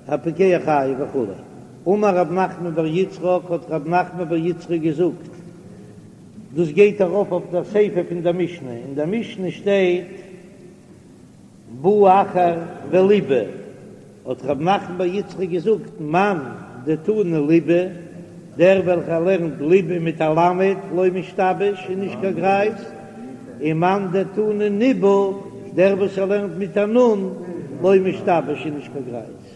הפוקע חייב וכו'. אמר רב נחמן בר יצחק, האט רב נחמן בר יצחק געזאגט, דאס גייט ארויף אויף דער סיפא פון דער משנה, אין דער משנה שטייט בא אחר וליבה, האט רב נחמן בר יצחק געזאגט, מאן דתני ליבה, דער וועלכער לערנט ליבה מיט א למד לא משתבש איז נישט קיין גרייז, און מאן דתני ניבה, דער וואס ער לערנט מיט א נון לא משתבש איז נישט קיין גרייז.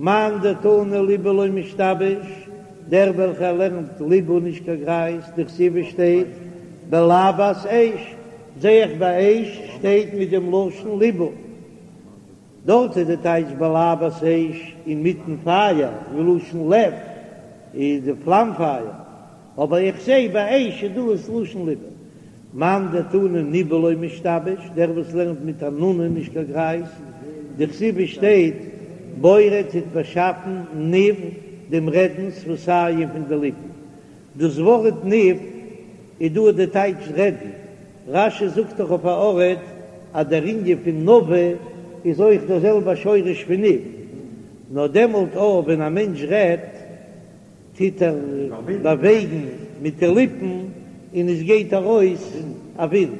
מאן דתני ליבה לא משתבש, דער וועלכער לערנט ליבה נישט קיין גרייז, דכתיב עס שטייט בלבת אש, זעה איך ביי אש שטייט מיט דעם לשון ליבה. דארט איז די טייטש בלבת אש אינמיטן פייער, מלשון לב איז די פלאם פייער, אבער איך זעה ביי אש איז דא עס לשון ליבה. מאן דתני ניבה לא משתבש, דער וואס לערנט מיט א נון איז נישט קיין גרייז, דכתיב עס שטייט בורא טוט באשאפן ניב דעם רעדן שפתים פון די ליפן, דאס ווארט ניב איז דא די טייטש רעדן, רש"י זאגט דאך אויף א ארט אז דער ענין פון נביא איז אויך דער זעלבער שורש פון ניב, נאר דעמאלט אויך ווען א מענטש רעדט טוט ער באוועגן מיט די ליפן און עס גייט ארויס א ווינט,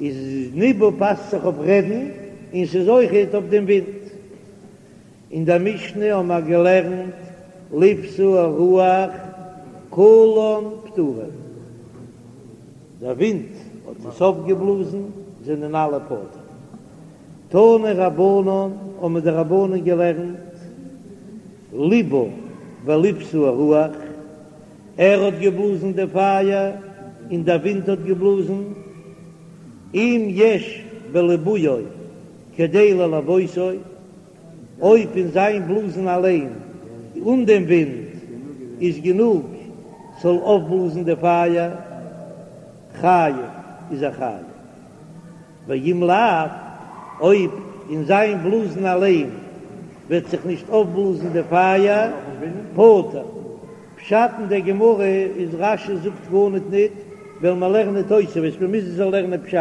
איז ניבא פאסט זיך אויף רעדן און ס'איז אויכעט אויף דעם ווינט. אין דער משנה האבן מיר געלערנט לבתה הרוח כולן פטורין, דער ווינט האט עס אויפגעבלאזן, זענען אלע פטור. תנו רבנן, האבן די רבנן געלערנט, ליבה ולבתה הרוח, ער האט געבלאזן די פייער און דער ווינט האט געבלאזן, אם יש בליבויו כדי ללבותו, אויב אין זיין בלאזן אליין אן דעם ווינט איז גענוג ס'זאל אויפבלאזן די פייער, חייב איז ער חייב. ואם לאו, אויב אין זיין בלאזן אליין וועט זיך נישט אויפבלאזן די פייער, פטור. פשט אין דער גמרא איז רש"י זאגט גארניט ניט, וועלן מיר לערנען תוספות, מיר מוזן זיך לערנען פשט.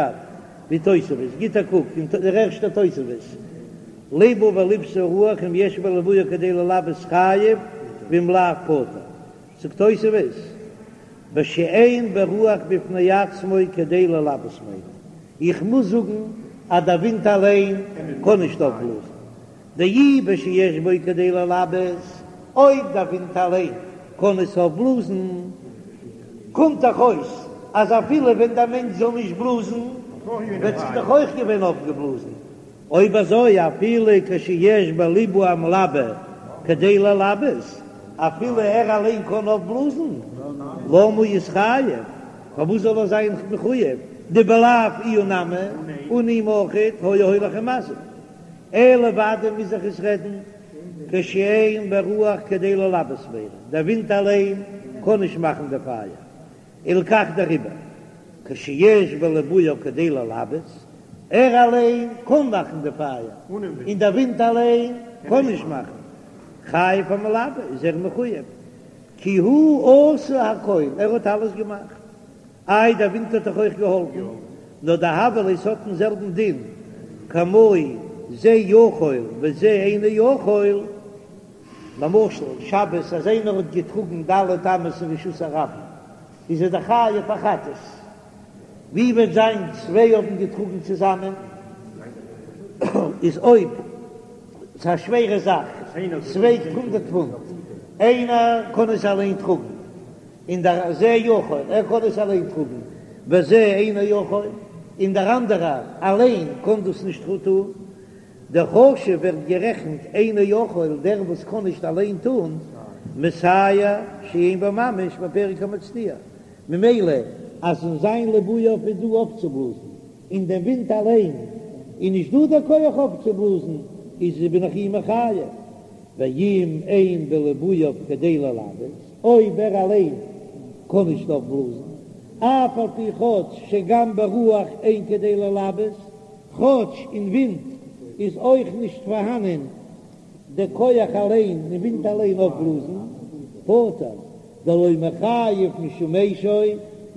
ווי תוספות, גיט א קוק אין דער ערשטער תוספות, ליבה ולבתה הרוח אם יש בליבויו כדי ללבות חייב ואם לאו פטור, זאגט תוספות, בשאין ברוח בפני עצמו כדי ללבות מיינו, איך מוז זאגן אז דער ווינט אליין קען נישט אויפבלאזן, דאי בשיש בו כדי ללבות, אויב דער ווינט אליין קען עס אויפבלאזן, קומט דאך אויס אז אפילו ווען דער מענטש זאל נישט בלאזן, וועט זיך דאך אויך געווען אויפגעבלאזן. אויב אזוי אפילו כשיש בליבוי המלבה כדי ללבות, אפילו ער אליין קען אויפבלאזן, למה יתחייב, פארוואס זאל ער זיין מחויב, דבלאו איהו נמי, אן אים אויכעט היה הולך ומזיק. אלא ודאי מוז זיך עס רעדן כשאין ברוח כדי ללבות מיינו, דער ווינט אליין קען נישט מאכן די פייער, הלכך דעריבער כשיש בליבויו כדי ללבות, ער אליין קען מאכן די פייער, און דער ווינט אליין קען נישט מאכן, חייב המלבה איז ער מחויב, כי הוא עשה הכל, ער האט אלעס געמאכט. איי דער ווינט האט דאך אויך געהאלפן, נאר דהוה ליה ס'האט דעם זעלבן דין כמו זה יכול וזה אינו יכול, למשל שבת אז איינער האט געטראגן ד' אמות אין רשות הרבים איז ער דאך חייב א חטאת, ווי וועט זיין צוויי האבן געטראגן צוזאמען איז אויב ס'איז א שווערע זאך ס'וועגט הונדרעט פונט איינער קען עס אליין טראגן. און דער זה יכול, ער קען עס אליין טראגן, וזה אינו יכול, און דער אנדערער אליין קען דאס נישט טון, דחשיב ווערט גערעכנט אינו יכול, דער וואס קען נישט אליין טון, מסייע שאין בו ממש בפרק המצניע, ממילא אז אין זיין ליבויו איז דא אויפצובלאזן, אין דעם ווינט אליין איז נישט דא דער כח אויפצובלאזן, איז בין איך אים מחייב, ואם אין בליבויו כדי ללבות. אויב ער אליין קען נישט אויפבלאזן, אף על פי כאטש שגם ברוח אין כדי ללבות, כאטש אין ווינט איז אויך נישט פארהאנען די כח אליין אין ווינט אליין אויפבלאזן, פטור, דלא מיחייב משום אשו,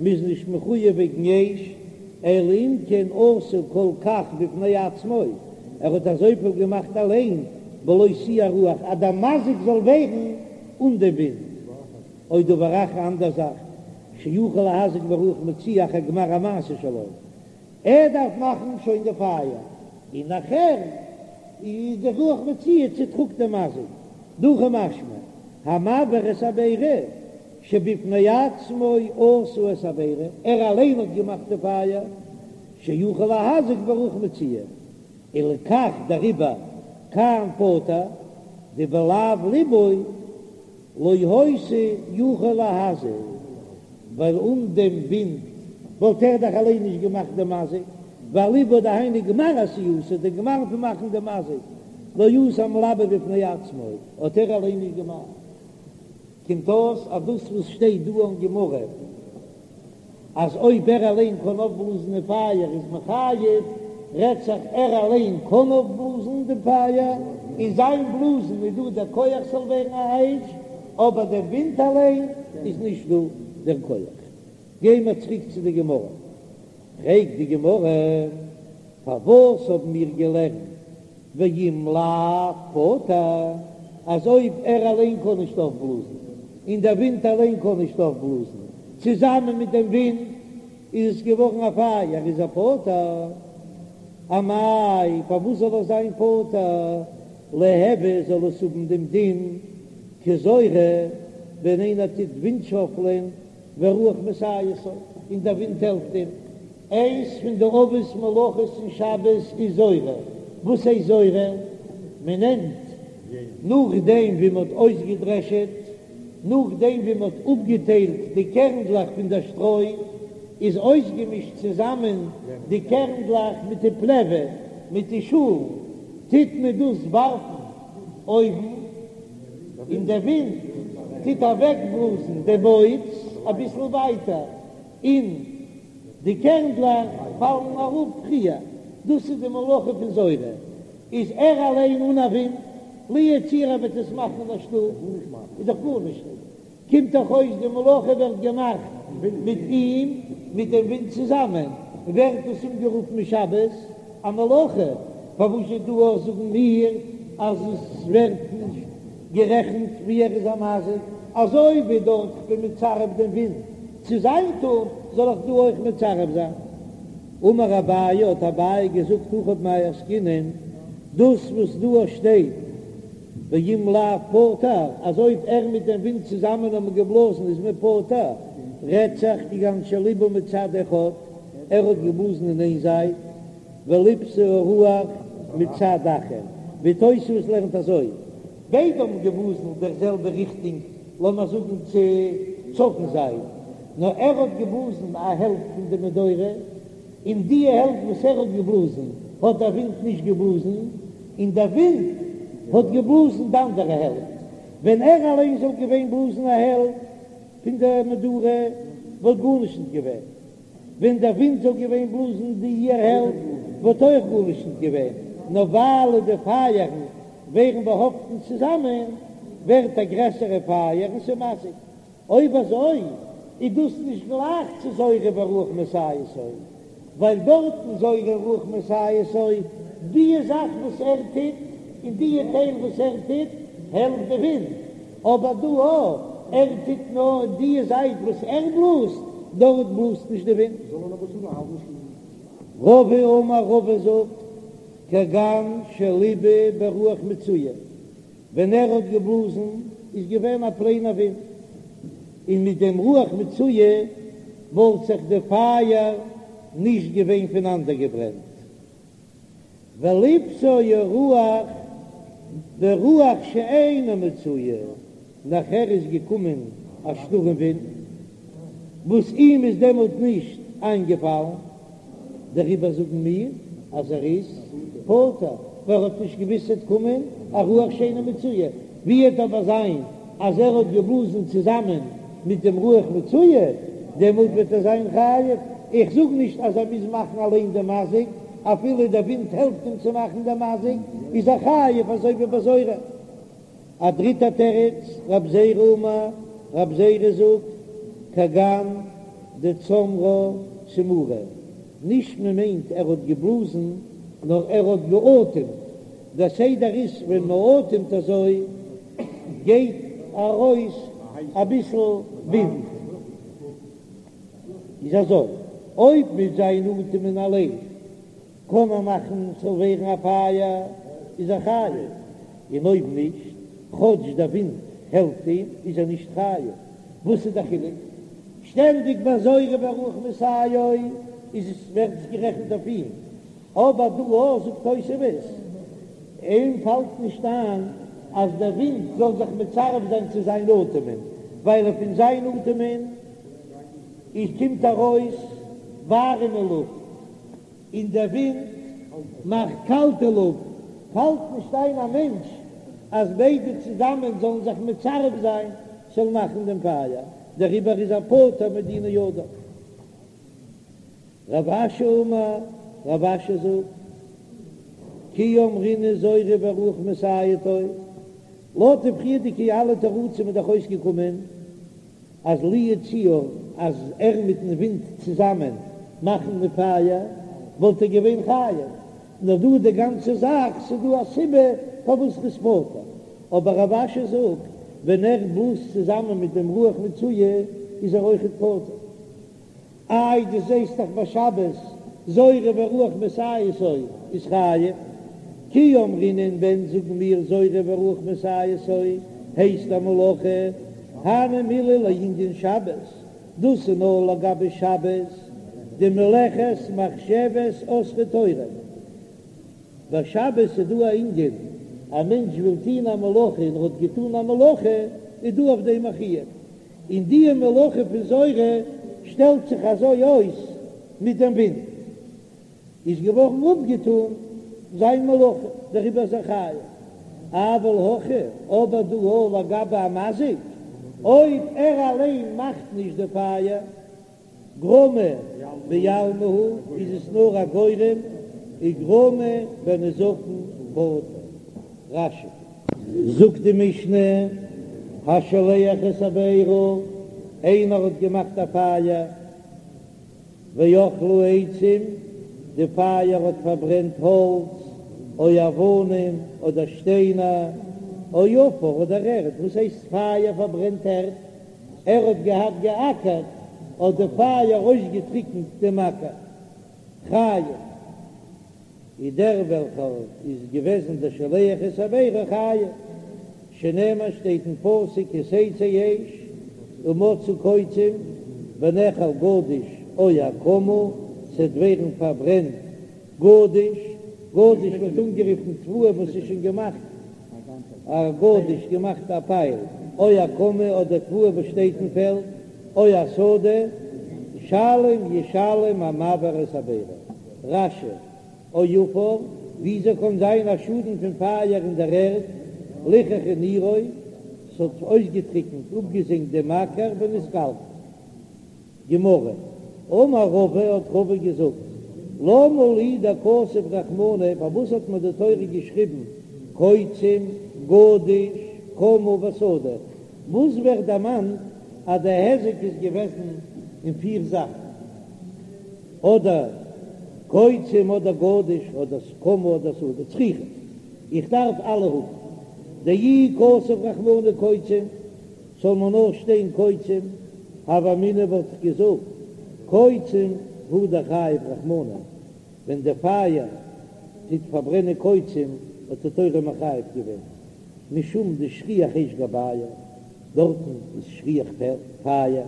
מ'איז נישט מחויב וועגן אש, אלא אם כן עשה כל כך בפני עצמו, ער האט אזויפיל געמאכט אליין. בלא תהיה הרוח, אז דער מזיק זאל ווערן אן דעם ווינט, או דבר אחר אנדער זאך, שיכול להזיק ברוח מצויה אחר גמר המעשה שלו, ער דארף מאכן שוין די פייער, און נאכער איז די רוח מצויה צוטראגט דעם מזיק, דהכי משמע, המבעיר את הבערה, שבפני עצמו עשה את הבערה, ער אליין האט געמאכט די פייער, שיכול להזיק ברוח מצויה, ולכך דעריבער כאן פטור, דבלאו ליבוי לא היתה יכול להזיק, ווייל אן דעם ווינט וואלט ער דאך אליין נישט געמאכט דעם מזיק, והליבוי דהיינו גמר עשייתו, דער גמר פון מאכן דעם מזיק, לא עשה המלבב בפני עצמו, האט ער אליין נישט געמאכט. קומט אויס אז דאס וואס שטייט דא אין גמרא אז אויב ער אליין קען אויפבלאזן די פייער איז מען חייב, רעדט זיך ער אליין קען אויפבלאזן דעם פייער, אין זיין בלאזן איז דא דער כח ס'זאל ווערן א אש, אבער דער ווינט אליין איז נישט דא דער כח. גייען מיר צוריק צו די גמרא, פרעגט די גמרא, פארוואס האבן מיר געלערנט ואם לאו פטור, אז אויב ער אליין קען נישט אויפבלאזן, און דער ווינט אליין קען נישט אויפבלאזן, צוזאמען מיט דעם ווינט איז עס געווארן א פייער, איז ער פטור. אמאי, פארוואס זאל ער זיין פטור? ליהוי זאל עס האבן דעם דין כזורה, ווען איינער טוט ווינטשאפלען ורוח מסייעתו, און דער ווינט העלפט אים. איינס פון די אבות מלאכות אין שבת איז זורה. וואס הייסט זורה? מען נעמט נאכדעם ווי מען האט אויסגעדרעשעט, נאכדעם ווי מען האט אפגעטיילט די קערנדלעך פון דער שטרוי, איז אויסגעמישט צוזאמען די קערנדלעך מיט די פלעווע, מיט די שאלן, טוט מען דאס ווארפן אויבן, און דער ווינט טוט אוועקבלאזן די מוץ אביסל ווייטער, און די קערנדלעך פאלן אראפ פריער. דאס איז די מלאכה פון זורה. איז ער אליין אן א ווינט, לו יצויר ער וועט עס מאכן אין א שטוב, איז דאך גארנישט נישט. קומט דאך אויס די מלאכה ווערט געמאכט מיט אים, מיט דעם ווינט צוזאמען, ווערט עס אנגערופן שבת א מלאכה, פארוואס איז דא אויך זאגן מיר אז עס ווערט נישט גערעכנט ווי ער איז א מזיק, אזוי ווי דארט כ'בין מצרף דעם ווינט צו זיין טון, זאל איך דא אויך מצרף זיין? אמר אביי, האט אביי געזאגט הכא במאי עסקינן, דאס וואס דא שטייט ואם לאו פטור, אז אויב ער מיט דעם ווינט צוזאמען האבן געבלאזן איז מען פטור, רעדט זיך כגון שליבה מצד אחד, ער האט געבלאזן אין איין זייט, ולבתה הרוח מצד אחר, ווי תוספות לערנט אזוי. ביידע האבן געבלאזן דער זעלבע ריכטונג, לאמיר זאגן צו צפון זייט, נאר ער האט געבלאזן א העלפט פון די מדורה, און די העלפט וואס ער האט געבלאזן האט דער ווינט נישט געבלאזן, און דער ווינט האט געבלאזן די אנדערע העלפט. ווען ער אליין זאל געווען בלאזן א העלפט פון די מדורה וואלט גארנישט נישט געווען. ווען דער ווינט זאל געווען בלאזן די איר העלפט וואלט אויך גארנישט נישט געווען, נאר ווייל די פייערן ווערן באהאפטן צוזאמען ווערט א גרעסערע פייער און ס'איז מזיק. אויב אזוי איז דאס נישט גלייך צו זורה ורוח מסייעתו, ווייל דארטן זורה ורוח מסייעתו, די זאך וואס ער טוט און די טייל וואס ער טוט העלפט די ווינט, אבער דא אויב ער טוט נאר די זייט וואס ער בלאזט, דארט בלאזט נישט די ווינט. רבא אמר רבא זאגט, כגון שליבה ברוח מצויה, ווען ער האט געבלאזן איז געווען א פלעינער ווינט, און מיט דעם רוח מצויה וואלט זיך די פייער נישט געווען פונאנדערגעברענט. ולבתה הרוח ברוח שאינה מצויה, נאכער איז געקומען א שטורעם ווינט וואס אים איז דעמאלט נישט איינגעפאלן, דעריבער זאגן מיר אז ער איז פטור, ווייל ער האט נישט געוואוסט ס'וועט קומען א רוח שאינה מצויה, ווי וועט אבער זיין אז ער האט געבלאזן צוזאמען מיט דעם רוח מצויה, דעמאלט וועט ער זיין חייב, איך זאג נישט אז ער מוז מאכן אליין דעם מזיק, אפילו דער ווינט העלפט אים צו מאכן דעם מזיק, איז ער חייב אזוי ווי ביי זורה. א דריטע תירוץ, רב זירא אמר, רב זירא זאגט, כגון דצמרה צמורי, נישט מען מיינט ער האט געבלאזן, נאר ער האט געאטעמט. דער סדר איז ווען מען אטעמט אזוי גייט ארויס אביסל ווינט, איז אזוי אויב מיט זיין אטעמען אליין קען ער מאכן ס'זאל ווערן א פייער איז ער חייב, און אויב נישט, כאטש דער ווינט העלפט אים, איז ער נישט חייב. וואס איז דער חילוק? שטענדיג ביי זורה והרוח מסייעו איז עס ווערט עס גערעכנט אויף אים, אבער דא אויך זאגט תוספות, אים פאלט נישט איין אז דער ווינט זאל זיך מצרף זיין צו זיין אטעמען, ווייל פון זיין אטעמען איז קומט ארויס ווארימע לופט, און דער ווינט מאכט קאלטע לופט, פאלט נישט איין א מענטש אז ביידע צוזאמען זאלן זיך מצרף זיין ס'זאל מאכן דעם פייער, דעריבער איז ער פטור מדיני אדם. רב אשי אמר, רב אשי זאגט, כי אמרינן זורה והרוח מסייעתו, לויט די פריערדיגע אלע תירוצים איז דאך אויסגעקומען אז לו יצוייר אז ער מיטן ווינט צוזאמען מאכן די פייער וואלט ער געווען חייב, נאר דא די גאנצע זאך ס'איז דא א סיבה פארוואס ר'איז פטור, אבער רב אשי זאגט ווען ער בלאזט צוזאמען מיט דעם רוח מצויה איז ער אויכעט פטור. איי דו זעסט דאך ביי שבת זורה והרוח מסייעתו איז חייב, כי אמרינן ווען זאגן מיר זורה והרוח מסייעתו הייסט א מלאכה, הני מילי לענין שבת, דאס איז נאר לגבי שבת, דמלאכת מחשבת אסרה תורה, ביי שבת איז דא א ענין, א מענטש וויל טוהן א מלאכה און ער האט געטאן א מלאכה איז דא אויף דעם א חיוב, און די מלאכה פון זורה שטעלט זיך אזוי אויס מיט דעם ווינט, איז געווארן אפגעטאן זיין מלאכה, דעריבער איז ער חייב. אבל הכא, אבער דא אויך לגבי א מזיק, אויב ער אליין מאכט נישט די פייער, גרמא בעלמא הוא, איז עס נאר א גורם, וגרמא בנזקין פטור. רש"י. זאגט די משנה, השולח את הבערה, איינער האט געמאכט א פייער, ואכלה עצים, די פייער האט פארברענט האלץ, או אבנים, אדער שטיינער, או עפר, אדער ערד, וואס הייסט פייער פארברענט ערד? ער האט געהאט געאקערט, האט די פייער אויסגעטריקנט דעם אקער. חייב איז דער וועלכער איז געוועזן דער שולח את הבערה חייב, שנאמר שטייט אין פסוק כי תצא אש ומצאה קוצים ונאכל גדיש או הקמה, ס'וועט ווערן פארברענט גדיש, גדיש ווערט אנגערופן תבואה וואס איז שוין געמאכט א גדיש געמאכט א פייל, או הקמה אדער תבואה וואס שטייט אין פעלד, או השדה, שלם ישלם המבעיר את הבערה. רש"י, או עפר, וויאזוי קען זיין א שאדן פון פייער אין דער ערד, ליחכה נירו, ס'האט אויסגעטריקנט, אפגעזענגט דעם אקער ונתקלקל. גמרא, אמר רבא, האט רבא געזאגט, למה לי דכתב רחמנא, פארוואס האט מיר די תורה געשריבן קוצים, גדיש, קמה ושדה, וואס ווערט דערמאנט אז די היזק איז געוועזן אין פיר זאכן, אדער קוצים אדער גדיש אדער קמה אדער שדה, צריכא, איך דארף אלע האבן, דאי כתב רחמנא קוצים, זאל מען נאר שטיין קוצים, הוה אמינא וואלט איך געזאגט קוצים הוא דחייב רחמנא, ווען די פייער טוט פארברענען קוצים האט די תורה מחייב געווען משום דשכיח אש גבייהו, דארטן איז שכיח פייער,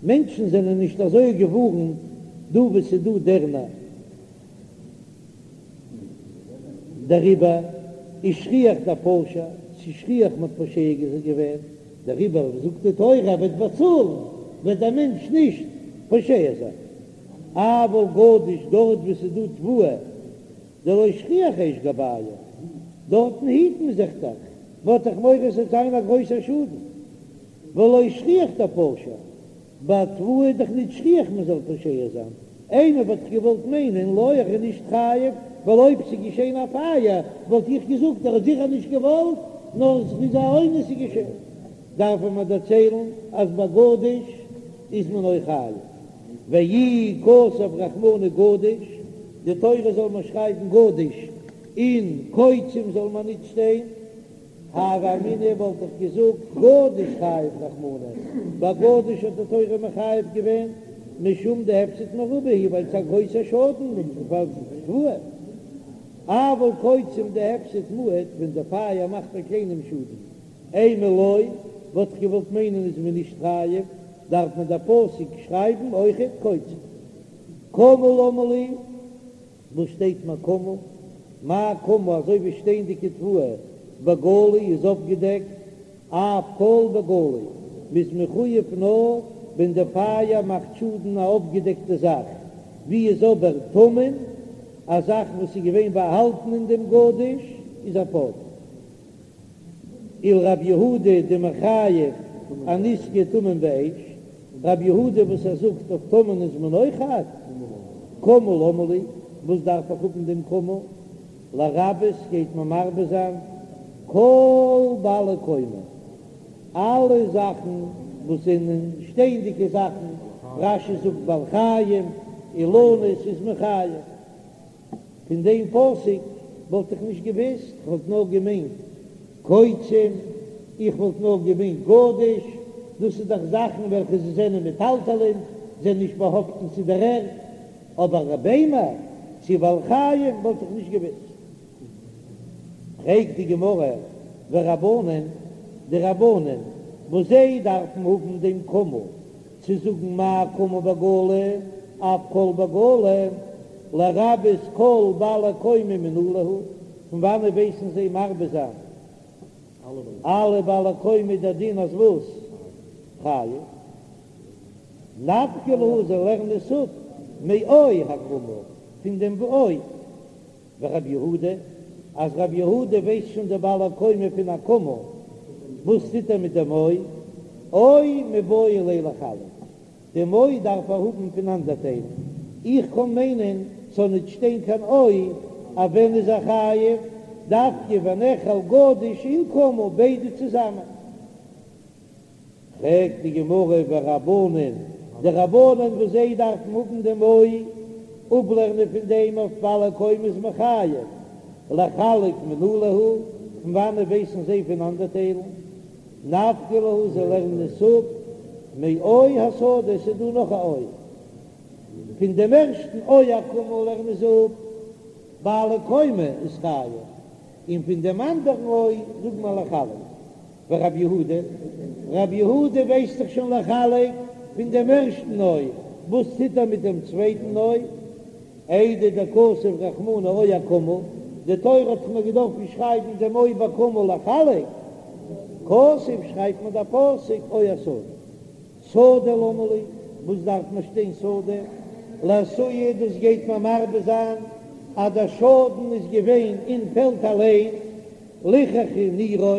מענטשן זענען נישט אזוי געווארנט דא וואו ס'איז דא דערנער. דעריבער איז שכיח דפשע, ס'איז שכיח מ'האט פושע געווען, דעריבער זאגט די תורה ער וועט באצאלן, וועט דער מענטש נישט פושע זיין. אבל גדיש דארט וואו ס'איז דא תבואה דלא שכיח אש גבייהו, דארטן היט מען זיך דאך, מ'האט דאך מורא ס'וועט זיין א גרויסער שאדן, ולא שכיח דפשע, ביי תבואה איז דאך נישט שכיח מען זאל פושע זיין, אימא וואלט איך געוואלט מיינען לא ער איז נישט חייב, ווייל אויב ס'איז געשען א פייער וואלט איך געזאגט ער האט זיכער נישט געוואלט, נאר ס'איז א אונס איז געשען. דארף מען מיר דערציילן אז ביי גדיש איז מען אויך חייב, ואי כתב רחמנא גדיש, די תורה זאל מיר שרייבן גדיש. און קוצים זאל מען ניט שטיין, הוה אמינא וואלט איך געזאגט גדיש חייב רחמנא, ביי גדיש האט די תורה מחייב געווען משום דהפסד מרובה הוא ווייל ס'איז א גרויסע שאדן פאר תבואה, אבל קוצים דהפסד מועט ווען די פייער מאכט א קליינעם שאדן, אימא לא, וואלט איך געוואלט מיינען איז מען נישט חייב, דארף מען דער פסוק שרייבן אויכעט קוצים. קמה למה לי, וואס שטייט מיר קמה? מה קמה אזוי ווי שטייענדיגע תבואה בגלוי איז אפגעדעקט, אף כל בגלוי, מ'איז מחויב נאר ווען די פייער מאכט שאדן א אפגעדעקטע זאך, ווי איז אבער טמון, א זאך וואס איז געווען באהאלטן אין דעם גדיש איז ער פטור. ולרב יהודה דמחייב אנזקי טמון באש, רב יהודה וואס ער זאגט אויף טמון איז מען אויך חייב, קמה למה לי, וואס דארף איך האבן דעם קמה, לרבות גייט מען מרבה זיין כל בעלי קומה, אלע זאכן וואס זענען שטייענדיגע זאכן, רש"י זאגט בעלי חיים, אילנות איז מען חייב. פון דעם פסוק וואלט איך נישט געוואוסט, כ'וואלט נאר געמיינט קוצים, איך וואלט נאר געמיינט גדיש, דאס איז דאך זאכן וועלכע זיי זענען מטלטלין, זענען נישט באהאפטן צו דער ערד, אבער ביימער צו בעלי חיים וואלט איך נישט געוואוסט. פרעגט די גמרא, ורבנן, די רבנן וואס זיי דארפן האבן דעם קמה צו זאגן מה קמה בגלוי אף כל בגלוי, לרבות כל בעלי קומה מנא להו, פון וואנעט ווייסן זיי מרבה זיין אלע בעלי קומה דער דין אז וואס? חייב. נפקא להו זיי לערנען עס אפ מאו הקמה פון דעם או. ורב יהודה, אז רב יהודה ווייסט שוין די בעלי קומה פון הקמה, וואס טוט ער מיט דעם או? או מיבעי ליה לחלק, דעם או דארף ער האבן פונאנדערטיילן, איך קען מיינען ס'זאל ניט שטיין קיין או, אז ווען איז ער חייב? דווקא ונאכל גדיש און קמה ביידע צוזאמען. פרעגט די גמרא ורבנן, די רבנן וואס זיי דארפן האבן דעם או, אפלערנען פון דעם אויף בעלי קומה איז מען חייב, לחלק מנא להו, פון וואנעט ווייסן זיי פונאנדערטיילן? נפקא להו זיי לערנען עס אפ מאו השדה, עס איז דא נאך א או, פון דעם ערשטן או הקמה לערנען זיי אפ בעלי קומה איז חייב, און פון דעם אנדערן או זאגט מען לחלק. ורב יהודה, רב יהודה ווייסט דאך שוין לחלק פון דעם ערשטן או, וואס טוט ער מיט דעם צווייטן או? איידי דכתב רחמנא או הקמה, די תורה האט דאך נאר געדארפן שרייבן דעם או בקמה לחלק, כתב שרייבט מען דער פסוק או השדה. שדה למה לי, וואס דארף מען שטיין שדה? לאתויי דאס גייט מען מרבה זיין אז דער שאדן איז געווען אין פעלד אליין, ליחכה נירו,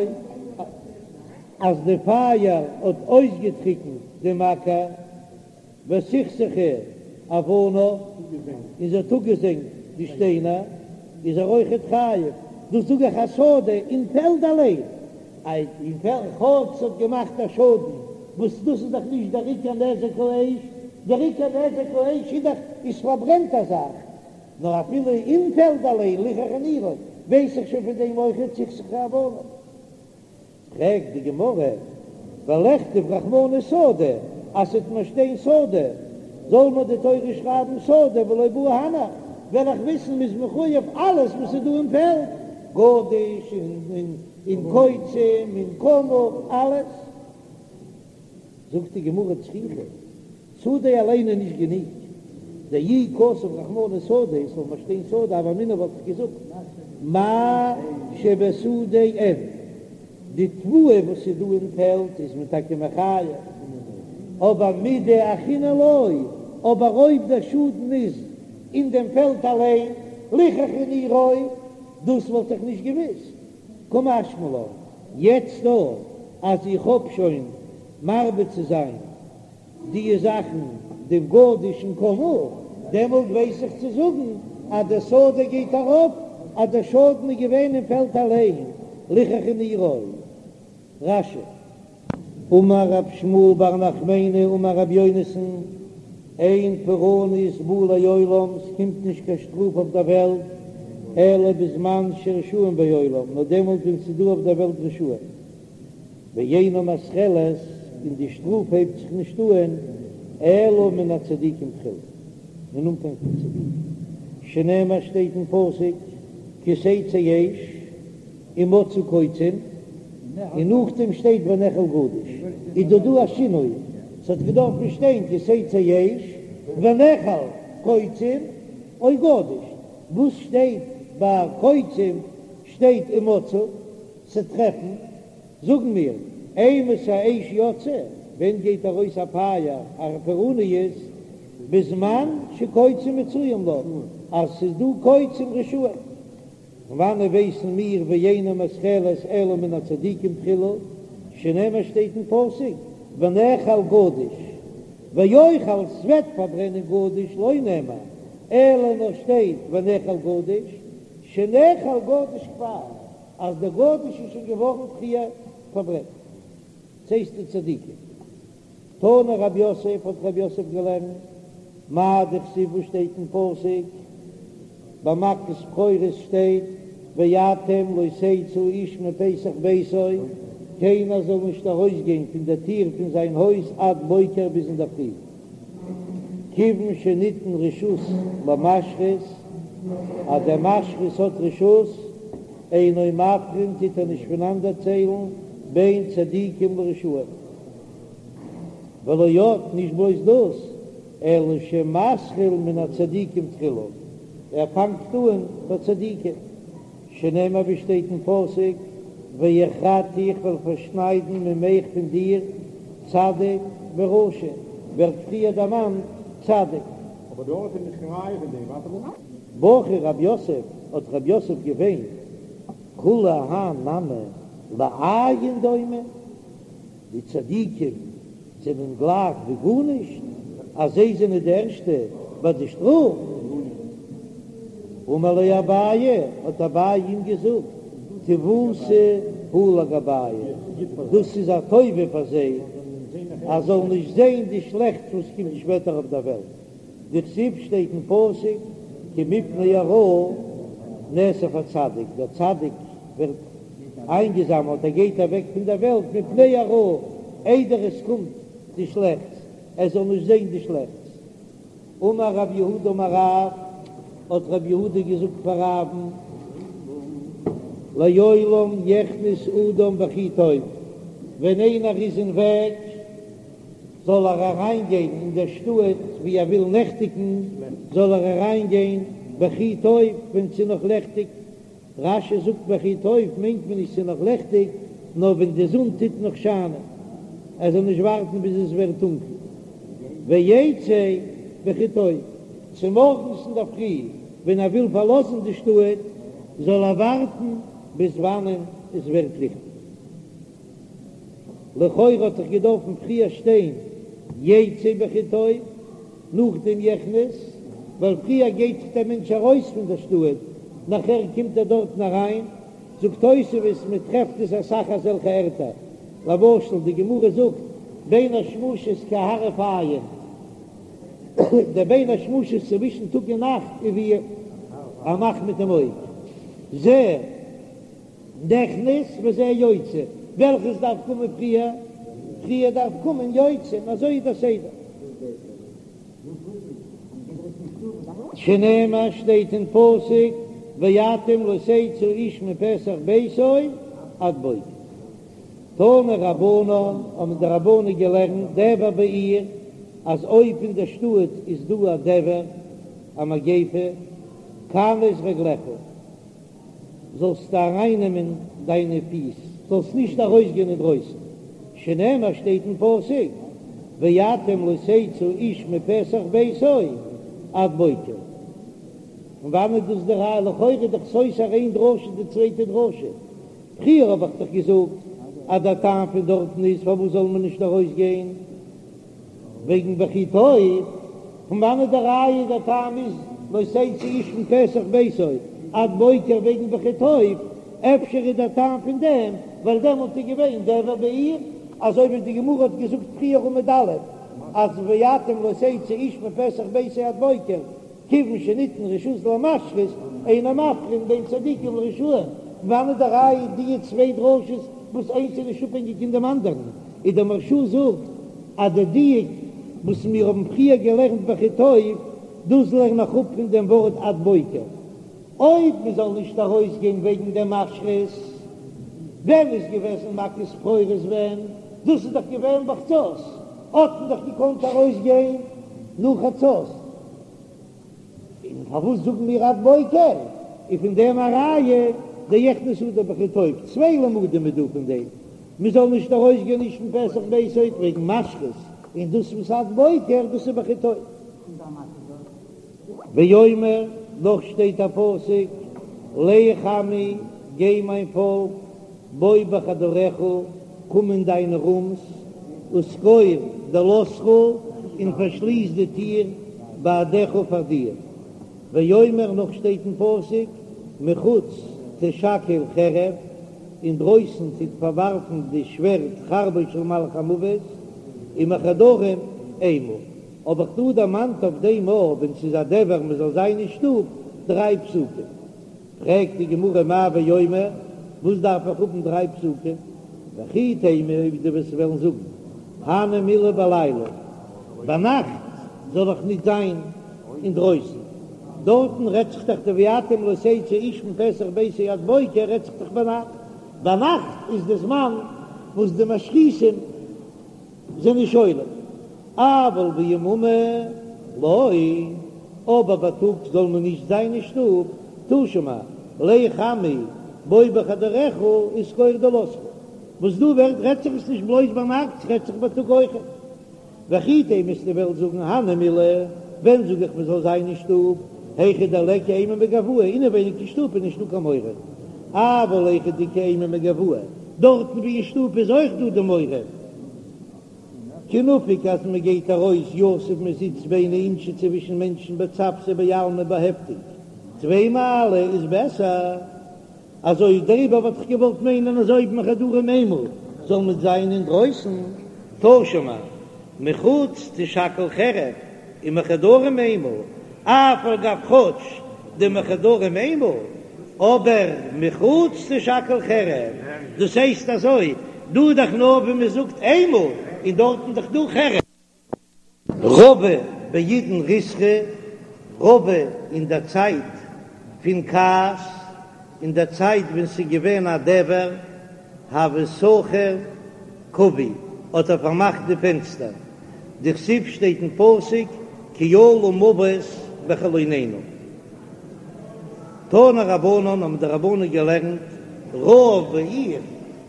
אז די פייער האט אויסגעטריקנט דעם אקער, וסכסכה אבניו, און זי האט אפגעזענגט די שטיינער, איז ער אויכעט חייב, דאס זאג איך השדה אין פעלד אליין, אין פעלד כאטש ס'האט געמאכט א שאדן, וואס דאס איז דאך נישט דער עיקר נזק האש, דער עיקר נזק האש איז דאך איז פארברענט א זאך, נאר אפילו אין פעלד אליין ליחכה נירו, ווייס איך שוין פון דעם אויכעט סיכסכה אבניו. פרעגט די גמרא, ולכתוב רחמנא שדה, אז ס'וועט מיר שטיין שדה, זאל מיר די תורה שרייבן שדה ולא בעי הנך, וועל איך וויסן מ'איז מחויב אלעס וואס איז דא אין פעלד, גדיש און קוצים און קמה, אלעס. זאגט די גמרא צריכא, שדה אליין איז נישט גענוג, דאי כתב רחמנא שדה, עס זאל מיר שטיין שדה, הוה אמינא וואלט איך געזאגט מה שבשדה אין, די תבואה וואס איז דא אין פעלד איז מען טאקע מחייב, אבער מידי אחרינא לא, אבער אויב דער שאדן איז אין דעם פעלד אליין, ליחכה נירו, דאס וואלט איך נישט געוואוסט. קא משמע לן, יעצט דא אז איך האב שוין מרבה צו זיין די זאכן דעם גדיש און קמה, דעמאלט ווייס איך צו זאגן אז דער שדה גייט ארויף אז דער שאדן איז געווען אין פעלד אליין, ליחכה נירו. רש"י. אמר רב שמואל בר נחמני אמר רבי יונתן, אין פורענות באה לעולם, ס'קומט נישט קיין שטראף אויף דער וועלט, אלא בזמן שרשעים בעולם, נאר דעמאלט ווען ס'איז דא אויף דער וועלט רשעים. ואינה מתחלת, און די שטראף הייבט זיך נישט אהן, אלא מן הצדיקים תחילה, אין אנפאנג פון צדיקים, שנאמר שטייט אין פסוק, כי תצא אש ומצאו קוצים, און נאכדעם שטייט ונאכל גדיש, איז דא דא א שינוי, ס'האט געדארפן שטיין כי תצא אש ונאכל קוצים או גדיש, וואס שטייט ביי קוצים שטייט ומצאו, ס'טרעפן, זאגן מיר, אימתי אש יוצאה, ווען גייט ארויס א פייער, א פורעניות, בזמן שקוצים מצויים לה, אז ס'איז דא קוצים רשעים. פון וואנעט ווייסן מיר ואינה מתחלת אלא מן הצדיקים תחילה, שנאמר שטייט אין פסוק ונאכל גדיש, ואוכל ס'וועט פארברענען גדיש לא נאמר, אלא נאר שטייט ונאכל גדיש, שנאכל גדיש כבר, אז דער גדיש איז שוין געווארן פריער פארברענט. ס'הייסט די צדיקים. תנא רב יוסף האט רב יוסף געלערנט, מאי דכתיב וואס שטייט אין פסוק ביי מכת בכורות שטייט ואתם לא תצאו איש מפתח ביתו, קיינער זאל נישט ארויסגיין פון דער טיר פון זיין הויז עד בוקר ביז אינדערפרי, כיוון שניתן רשות למשחית, אז דער משחית האט רשות, אינו מבחין טוט ער נישט פונאנדערציילן בין צדיקים לרשעים. ולא עוד, נישט בלויז דאס, אלא שמתחיל מן הצדיקים תחילה, ער פאנגט אן ביי צדיקים, שנאמר ווי שטייט אין פסוק, והכרתי איך וועל פארשניידן ממך פון דיר צדיק ורשע, ווערט פריער דערמאנט צדיק. אבער דארט איז נישט קיין ראיה פון דעם, ווייטער אן. בכה רב יוסף, האט רב יוסף געוויינט, כולי האי נמי לאין דומי, די צדיקים זענען גלייך ווי גארנישט, אז זיי זענען די ערשטע ביי די שטראף. אמר ליה אביי, האט אביי אים געזאגט, טיבותא היא לגבייהו, דאס איז א טובה פאר זיי, אז זאלן נישט זען די שלעכטס וואס קומט שפעטער אויף דער וועלט. דכתיב שטייט אין פסוק כי מפני הרעה נאסף הצדיק, דער צדיק ווערט איינגעזאמעלט, ער גייט אוועק פון דער וועלט מפני הרעה, איידער עס קומט די שלעכטס, ער זאל נישט זען די שלעכטס. אמר רב יהודה אמר רב, האט רב יהודה געזאגט פאר רב'ן, לעולם יכנס אדם בכי טוב, ווען איינער איז אין וועג, זאל ער אריין גיין אין דער שטאט ווי ער וויל נעכטיגן, זאל ער אריין גיין בכי טוב ווען ס'איז נאך לעכטיג, רש"י זאגט בכי טוב מיינט מען נישט ס'איז נאך לעכטיג, נאר ווען די זון טוט נאך שיינען, ער זאל נישט ווארטן ביז עס ווערט טונקל, ויצא בכי טוב, צומארגנס אינדערפרי ווען ער וויל פארלאזן די שטאט, זאל ער ווארטן ביז וואנען עס ווערט ליכטיג. לכאורה האט דאך געדארפן פריער שטיין יצא בכי טוב, נאכדעם יכנס, ווייל פריער גייט דאך דער מענטש ארויס פון דער שטאט, נאכער קומט ער דארטן אריין, זאגט תוספות מען טרעפט עס אסאך אזעלכע ערטער, למשל די גמרא זאגט בין השמשות כהרף עין, דער בין השמשות צווישן טאג און נאכט איז ווי א מאך מיט דעם אויג, זה. נכנס וזה יוצא, וועלכעס דארף קומען פריער? פריער דארף קומען יוצא, און אזוי איז דער סדר. שנאמר שטייט אין פסוק ואתם לא תצאו איש מפתח ביתו עד בוקר. תנו רבנן, האבן די רבנן געלערנט דבר בעיר, אז אויב אין דער שטאט איז דא א דבר, א מגיפה, כנס רגליך. זאלסטו ארייננעמען דיינע פיס, זאלסט נישט ארויסגיין אינדרויסן, שנאמר שטייט אין פסוק, ואתם לא תצאו איש מפתח ביתו עד בוקר. פון וואנעט איז דאס די ראיה? לכאורה איז דאך סותר איין דרשה די צווייטע דרשה. פריער האב איך דאך געזאגט אז דער טעם פון דארטן איז פארוואס זאל מען נישט ארויסגיין? וועגן בכי טוב, פון וואנעט די ראיה דער טעם איז לא תצאו איש מפתח ביתו עד בוקר וועגן בכי טוב, אפשר איז דער טעם פון דעם ווייל דעמאלט איז געווען דבר בעיר, אזוי ווי די גמרא האט געזאגט פריער עמוד א' אז ואתם לא תצאו איש מפתח ביתו עד בוקר, כיוון שניתן רשות למשחית. אינו מבחין בין צדיקים לרשעים, וואנעט די ראיה די צוויי דרשות וואס איינס איז נישט אפהענגיק אין דעם אנדערן, איז דער מהרש"א זאגט אז די דיוק וואס מיר האבן פריער געלערנט בכי טוב, דאס לערן איך אפ פון דעם ווארט עד בוקר. אויב מען זאל נישט ארויסגיין וועגן דעם משחית, ווען איז געוועזן מכת בכורות ווען? דאס איז דאך געווען בחצות, האט מען דאך געקאנט ארויסגיין נאך חצות, און פארוואס זאגן מיר עד בוקר? איז פון דעם א ראיה דיכנס אדם בכי טוב, צוויי למודים איז דא פון דעם, מען זאל נישט ארויסגיין איש מפתח ביתו וועגן משחית, און דאס וואס עד בוקר דאס איז בכי טוב. ואומר, נאך שטייט א פסוק, לך עמי, גיי מיין פאלק, בוא בחדריך, קום אין דיינע רומס, וסגור דלתך, און פארשליס די טיר בעדך פאר דיר. ואומר, נאך שטייט אין פסוק, מחוץ תשכל חרב, אינדרויסן טוט פארווארפן די שווערד חרבו של מלאך המוות, ומחדרים אימה. האב איך דא דערמאנט אויף דעם אויב ווען ס'איז א דבר מ'זאל זיין אין שטוב דריי פסוקים. פרעגט די גמרא מאי ואומר, וואס דארף איך האבן דריי פסוקים? וכי תימא אויב דו וועסט וועלן זאגן הני מילי בלילה, ביינאכט זאל איך נישט זיין אינדרויסן, דארטן רעדט זיך דאך די ואתם לא תצאו איש מפתח ביתו עד בוקר רעדט זיך דאך ביינאכט, ביינאכט איז די זמן וואס די משחיתים זענען שולט, אבל ביממא לא, אבער בייטאג זאל מען נישט זיין אין שטוב, תא שמע, לך עמי בוא בחדריך וסגור דלתך, וואס דא ווערט רעדט זיך עס נישט בלויז ביינאכט, ס'רעדט זיך בייטאג אויכעט. וכי תימא וועסטו וועלן זאגן הני מילי, ווען זאג איך מען זאל זיין אין שטוב, היכא דליכא אימה מגואי, אינעווייניג אין שטוב איז נישטא קיין מורא, אבל היכא דאיכא אימה מגואי, דארטן ווי אין שטוב איז אויך דא די מורא, כי נפיק אז מען גייט ארויס יתיב מען זיצט ביני אינשי צווישן מענטשן בצוותא בעלמא באהעפטונג טפי מעלי איז בעסער אזוי דעריבער וואלט איך געוואלט מיינען אז אויב מחדרים אימה זאל מען זיין אינדרויסן תא שמע מחוץ תשכל חרב ומחדרים אימה, אף על גב כאטש דמחדרים אימה, אבער מחוץ תשכל חרב, דאס הייסט אזוי, דא איז דאך נאר ווי מען זאגט אימה, און דארטן דאך דא חרב. רבא בעידן ריתחא, רבא אין דער צייט פון כעס, אין דער צייט ווען ס'איז געווען א דבר הוה סכר כוי האט ער פארמאכט די פענסטער, דכתיב שטייט אין פסוק כי עלה מות בחלונינו. תנו רבנן האבן די רבנן געלערנט רעב בעיר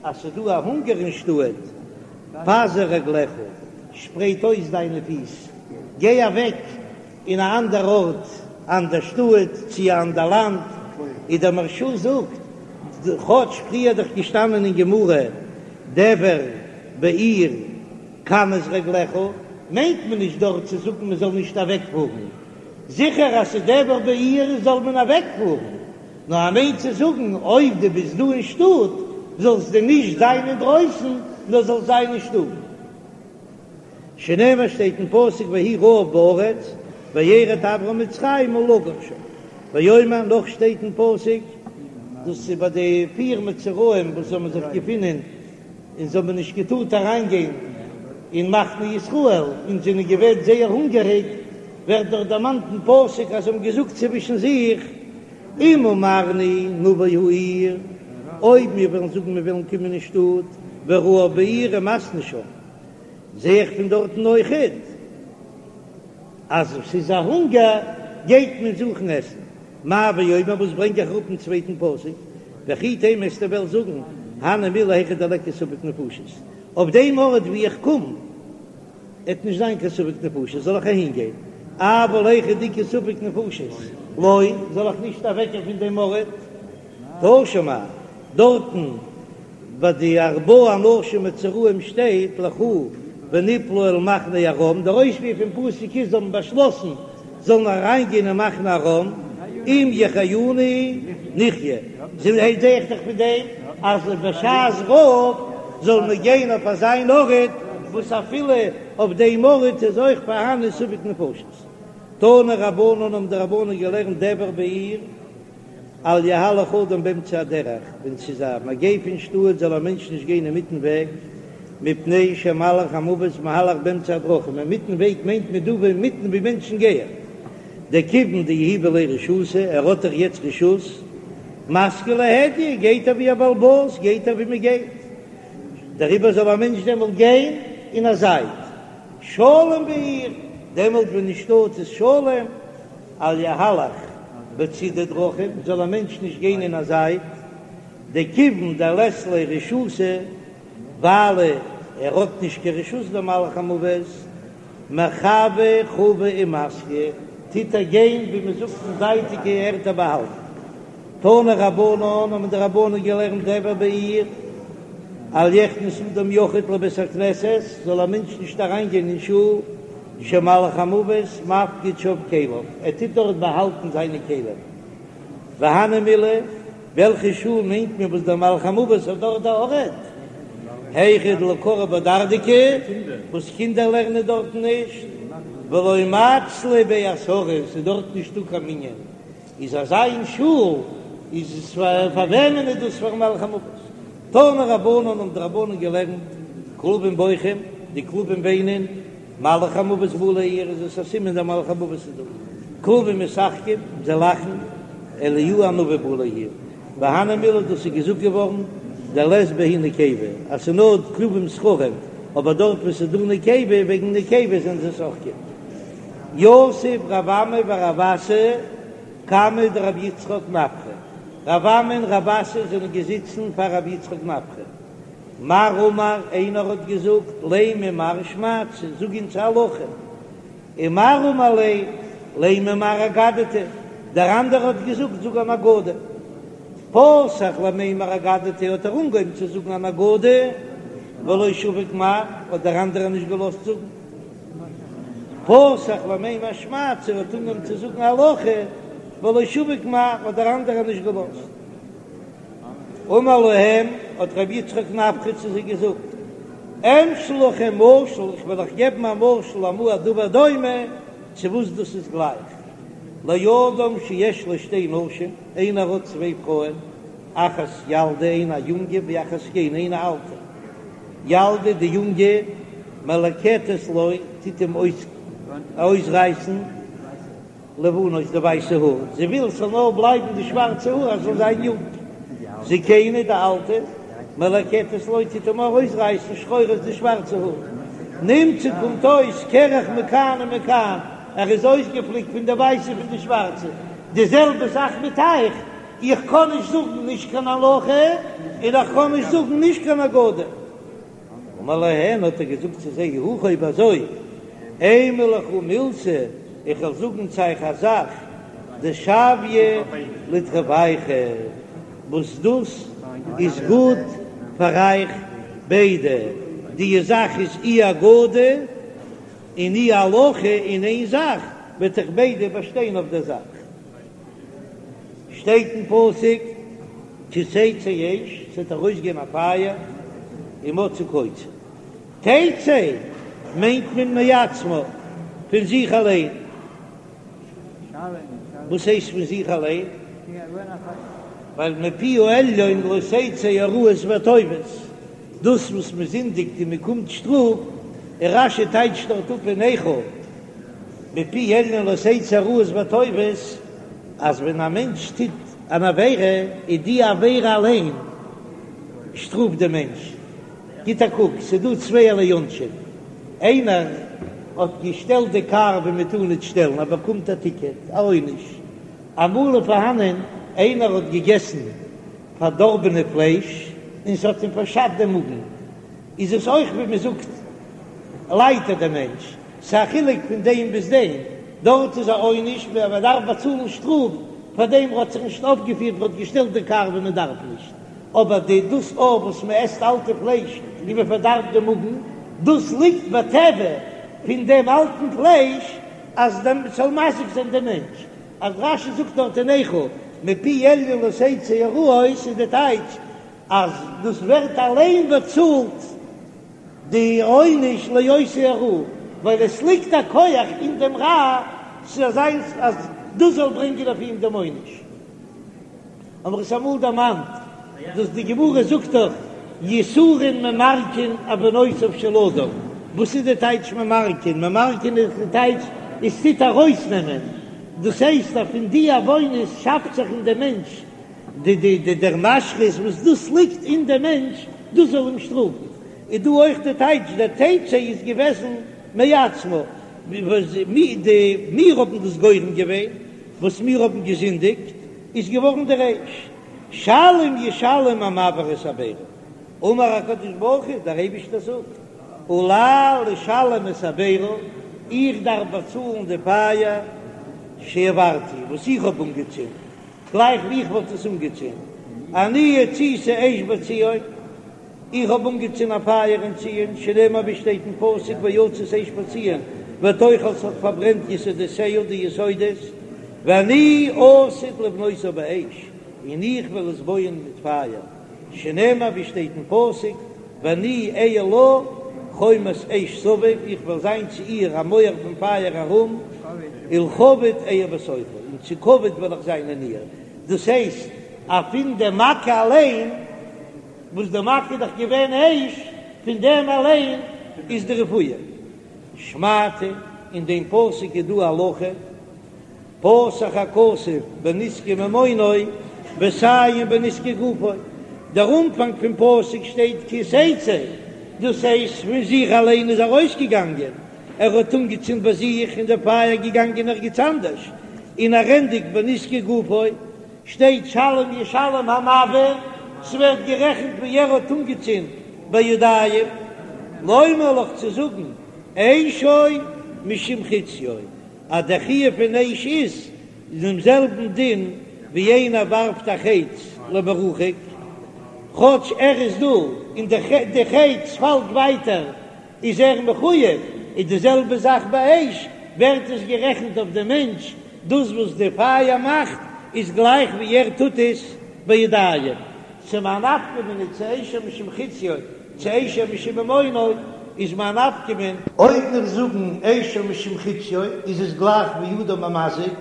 אז ס'איז דא א הונגער אין שטאט, פזר רגליך, שפרייט אויס דיינע פיס, גיי אוועק אין א אנדער ארט, אנדער שטאט, צי א אנדער לאנד, איז דער מהרש"א זאגט, כאטש פריער דאך געשטאנען אין גמרא דבר בעיר כנס רגליך, מיינט מען נישט דארט צו זאגן מען זאל נישט אוועקפארן, זיכער אז ס'איז דבר בעיר זאל מען אוועקפארן, נאר ער מיינט צו זאגן אויב דו ביסט דא אין שטאט זאלסטו נישט זיין אינדרויסן נאר זאלסט זיין אין שטוב. שנאמר שטייט אין פסוק ויהי רעב בארץ וירד אברם מצרימה לגור שם, ואומר נאך שטייט אין פסוק, דאס איז ביי די פיר מצורעים וואס האבן זיך געפונען און זיי האבן נישט געטארט אריינגיין אין מחנה ישראל און זענען געווען זייער הונגעריג, ווערט דאך דערמאנט אין פסוק אז זיי האבן געזאגט צווישן זיך, אם אמרנו נבוא העיר, אויב מיר וועלן זאגן מיר וועלן קומען אין שטאט, ורעב בעיר ומתנו שם. זע איך פון דארטן אויכעט אז ס'איז א הונגער גייט מען זוכן עסן. מאי ואומר וואס ברענג איך אראפ אין צווייטן פסוק, וכי תימא וועסטו וועלן זאגן הני מילי היכא דליכא ספק נפשות, אויף דעם ארט ווי איך קום עט נישט זיין קיין ספק נפשות זאל איך אהין גיין, אבל היכא דאיכא ספק נפשות לא זאל איך נישט אוועקגיין פון דעם ארט. תא שמע, דארטן ביי די ארבעה אנשים מצורעים שטייט לכו ונפלה אל מחנה ארם, דער אויספיר פון פסוק איז זיי האבן באשלאסן זאלן אריינגיין אין מחנה ארם, אם יחיונו נחיה, זע איך דאך פון דעם אז בשעת רעב זאל מען גיין אויף אזיין ארט וואס אפילו אויף דעם ארט איז אויך פארהאן ספק נפשות. תנו רבנן האבן די רבנן געלערנט דבר בעיר. אל יהלך אדם באמצע הדרך, ווען ס'איז א מגיפה אין שטאט זאל א מענטש נישט גיין אינמיטן וועג, מפני שמלאך המוות מהלך באמצע הדרכים, אינמיטן וועג מיינט מען דא ווי אינמיטן ווי מענטשן גייען, דכיון דיהיבא ליה רשותא, ער האט דאך יעצט רשות, מסגי להדיא, גייט ער ווי א בעל הבית, גייט ער ווי מען גייט, דעריבער זאל א מענטש דעמאלט גיין אין א זייט, שלום בעיר, דעמאלט ווען אין שטאט איז שלום, אל יהלך בצידי דרכים, זאל א מענטש נישט גיין אין א זייט, דכיון דלית ליה רשותא, ווייל ער האט נישט קיין רשות דער מלאך המוות, מחוה חוי ומסגי, טוט ער גיין ווי מען זאגט אין זייטיגע ערטער באהאלטן. תנו רבנן האבן די רבנן געלערנט דבר בעיר, אל יכנס אדם יחיד לבית הכנסת, זאל א מענטש נישט אריינגיין אין שול, שמלאך המוות מפקיד שם כליו, ער טוט דארט באהאלטן זיינע כלים. והני מילי, וועלכע שול מיינט מען וואס דער מלאך המוות האט דארט א ארט? היכא דלא קרו בה דרדקי, וואס קינדער לערנען דארטן נישט, ולא מצלו ביה עשרה, ס'איז דארט נישטא קיין מנין, איז אזא אין שול איז עס פאר וועמען איז דאס פארן מלאך המוות? תנו רבנן האבן די רבנן געלערנט כלבים בוכים, די כלבים וויינען, מלאך המוות בא לעיר איז עס א סימן דער מלאך המוות איז דא, כלבים משחקים, זיי לאכן, אליהו הנביא בא לעיר, והני מילי דאס איז געזאגט געווארן דלית בהו נקבה אז ס'איז נאר כלבים זכרים, אבער דארט וואו ס'איז דא נקבה וועגן נקבה זענען זיי שוחקים. יתיב רב אמי ורב אסי קמיה דרבי יצחק נפחא, רב אמי און רב אסי זענען געזיצן פאר רבי יצחק נפחא, מר אמר, איינער האט געזאגט, לימא מר שמעתתא, זאג אונז א הלכה, און מר אמר ליה, לימא מר אגדתא, דער אנדערער האט געזאגט, זאג אן אגדה. פתח למימר אגדתא האט ער אנגעהויבן צו זאגן אן אגדה, ולא שביק מר, האט דער אנדערער נישט געלאזט זאגן. פתח למימר שמעתתא האט אנגעהויבן צו זאגן הלכה, ולא שביק מר, האט דער אנדערער נישט געלאזט. אמר להם, האט רבי יצחק נפחא צו זיי געזאגט, אמשול לכם משל, איך וועל אייך געבן א משל למה הדבר דומה, צו וואס דאס איז גלייך, לאדם שיש לו שתי נשים, איינער האט צוויי פרויען, אחת ילדה איינע א יונגע ואחת זקנה איינע אלטע, ילדה די יונגע מלקטת לו טוט אים אויסרייסן, לבנות די ווייסע האר, זי וויל ס'זאל נאר בלייבן די שווארצע האר אז זאל זיין יונג. זקנה די אלטע, מלקטת לו טוט אים ארויסרייסן שחורות די שווארצע האר. נמצא קומט אויס קרח מכאן ומכאן, ער איז אויסגעפליקט פון די ווייסע פון די שווארצע. די זעלבע זאך מיט אייך, איך קען נישט זאגן נישט קיין הלכה און איך קען נישט זאגן נישט קיין אגדה. אמר להן האט ער געזאגט צו זיי, אי הכי אויב אזוי, אימא לכו מילתא, איך וועל זאגן צו אייך א זאך, דשויא לתרווייכו, וואס דאס איז גוט פאר אייך ביידע, די זאך איז אי אגדה און אי הלכה אין איין זאך, וועט אייך ביידע באשטיין אויף דער זאך. שטייט אין פסוק כי תצא אש, ס'וועט ארויסגיין א פייער, ומצאה קוצים. תצא מיינט מען מעצמה, פון זיך אליין. וואס הייסט פון זיך אליין? ווייל מפי העליון לא תצא הרעות והטובות, דאס וואס מען זינדיגט און מען קומט שטראף, און רש"י טייטשט דארט אפ אין איכה, מפי העליון לא תצא הרעות והטובות, אז ווען א מענטש טוט אן עבירה, איז די עבירה אליין שטראפט דעם מענטש. גיט א קוק, ס'איז דא צווייערליי עונשים, איינער האט געשטעלט די קאר ווי מען טאר ניט שטעלן, ער באקומט א טיקעט, א עונש. אמאל איז פארהאנען איינער האט געגעסן פארדארבענע פלייש און ס'האט אים פארשאדט דעם מאגן, איז עס אויך ווי מען זאגט ליידט ער דער מענטש. ס'איז א חילוק פון דעם ביז דעם, דארט איז א עונש ווען מען דארף באצאלן שטראף פאר דעם האט זיך נישט אויפגעפירט מען האט געשטעלט די קאר ווי מען דארף נישט, אבער די דאס אויף וואס מען עסט אלטע פלייש און מען פארדארבט די מאגן, דאס ליגט בטבע פון דעם אלטן פלייש אז דעם ס'זאל מזיק זיין דעם מענטש, אז רש"י זאגט דארט אין איכה מפי עליון לא תצא הרעות איז די טייטש אז דאס ווערט אליין באצאלט. די עונש לעושי הרע, ווייל עס ליגט א כח אין דעם רע ס'זאל זיין אז דאס זאל ברענגען אויף אים דעם עונש. האבן מיר עס אמאל דערמאנט, דאס די גמרא זאגט דאך יסורין ממרקין עוונותיו של אדם, וואס איז די טייטש ממרקין? ממרקין איז די טייטש עס טוט ארויסנעמען, דאס הייסט אז פון די עוונות שאפט זיך אין דעם מענטש די די די דער משחית וואס דאס ליגט אין דעם מענטש, דאס זאל אים שטראפן. איז דא אויך די טייטש דער תצא איז געוועזן מעצמה, די מיר האבן דאס גורם געווען, וואס מיר האבן געזינדיגט, איז געווארן דער אש, שלם ישלם המבעיר את הבערה, אמר הקדוש ברוך הוא, דער אייבישטער זאגט, עלי לשלם את הבערה, איך דארף באצאלן די פייער שהבערתי, וואס איך האב אנגעצינדן, גלייך ווי איך וואלט עס אנגעצינדן, אני הציתי אש בציון, איך האב אנגעצינדן א פייער אין ציון, שנאמר ווי שטייט אין פסוק ויצת אש בציון ותאכל ס'האט פארברענט יסודותיה די יסודות, ואני עתיד לבנותה באש, און איך וועל עס בויען מיט פייער, שנאמר ווי שטייט אין פסוק ואני אהיה לה חומת אש סביב, איך וועל זיין צו איר א מויער פון פייער ארום, ולכבוד אהיה בתוכה, און צו כבוד וועל איך זיין אין איר, דאס הייסט אז פון די מכה אליין. וואס די מכה איז דאך געווען אש, פון דעם אליין איז די רפואה. שמעתא, אין דעם פסוק איז דא א הלכה, פתח הכתוב בנזקי ממונו וסיים בנזקי גופו, דער אנפאנג פון פסוק שטייט כי תצא, דאס הייסט פון זיך אליין איז ארויסגעגאנגען, ער האט אנגעצינדן ביי זיך און דער פייער געגאנגען ערגעץ אנדערש, און ער ענדיגט בנזקי גופו. שטייט שלם ישלם המבעיר, ס'ווערט גערעכנט ווי ער האט אנגעצינדן בידיים, לומר לך צו זאגן אשו משום חציו, אז דער חיוב פון אש איז דעם זעלבן דין ווי איינער ווארפט א חץ למרחק, כאטש ער איז דא און די חץ פאלט ווייטער איז ער מחויב, איז די זעלבע זאך ביי אש, ווערט עס גערעכנט אויף דעם מענטש, דאס וואס די פייער מאכט איז גלייך ווי ער טוט עס בידיים. צו מאי נפקא מינה צו אשו משום חציו צו אשו משום ממונו איז מאי נפקא מינה. אויב מיר זאגן אשו משום חציו איז עס גלייך ווי אדם המזיק,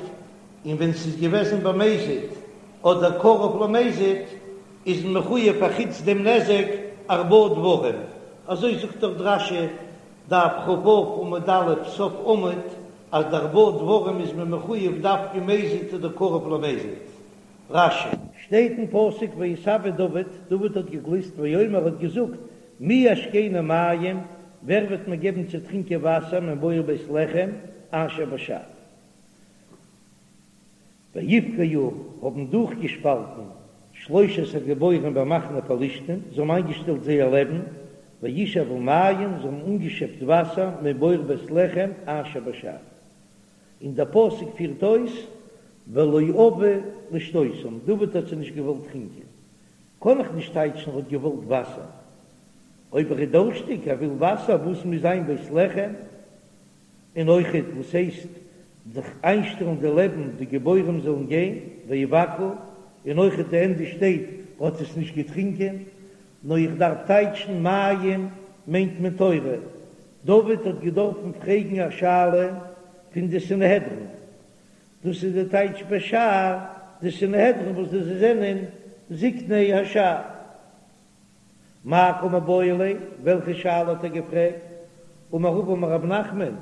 און ווען ס'איז געוועזן במזיד אדער קרוב למזיד איז מען מחויב פאר חוץ דעם נזק ארבעה דברים, אזוי זאגט דאך רש"י דף כ"ו עמוד א' סוף עמוד אז די ארבעה דברים איז מען מחויב דווקא מזיד אדער קרוב למזיד. רש"י. שטייט אין פסוק ויתאוה דוד, דוד האט געגליסט ויאמר האט געזאגט מי ישקני מים, ווער וועט מיר געבן צו טרינקען וואסער מבור בית לחם אשר בשער. ויבקעו האבן דורכגעשפאלטן שלושת הגיבורים במחנה פלשתים, זיי האבן איינגעשטעלט זייער לעבן, וישאבו מים, זיי האבן אנגעשעפט וואסער מבור בית לחם אשר בשער. און דער פסוק פירט אויס, ולא אבה לשתותם, דוד האט זיי נישט געוואלט טרינקען. קען איך נישט טייטשן ער האט געוואלט וואסער. אויב ער איז דורשטיג, ער וויל וואסער, וואס מוז זיין בית לחם? און אויכעט וואס הייסט זיך איינשטעלן די לעבן די גיבורים זאלן גיין ויבקעו, און אויכעט די ענדע שטייט האט עס נישט געטרינקען, נאר איך דארף טייטשן מים מיינט מען תורה, דוד האט געדארפן פרעגן א שאלה פון די סנהדרין, דאס איז די טייטש בשער די סנהדרין וואס די זענען זקני השער. מאי קא מיבעיא ליה, וועלכע שאלה האט ער געפרעגט? אמר רבא אמר רב נחמן,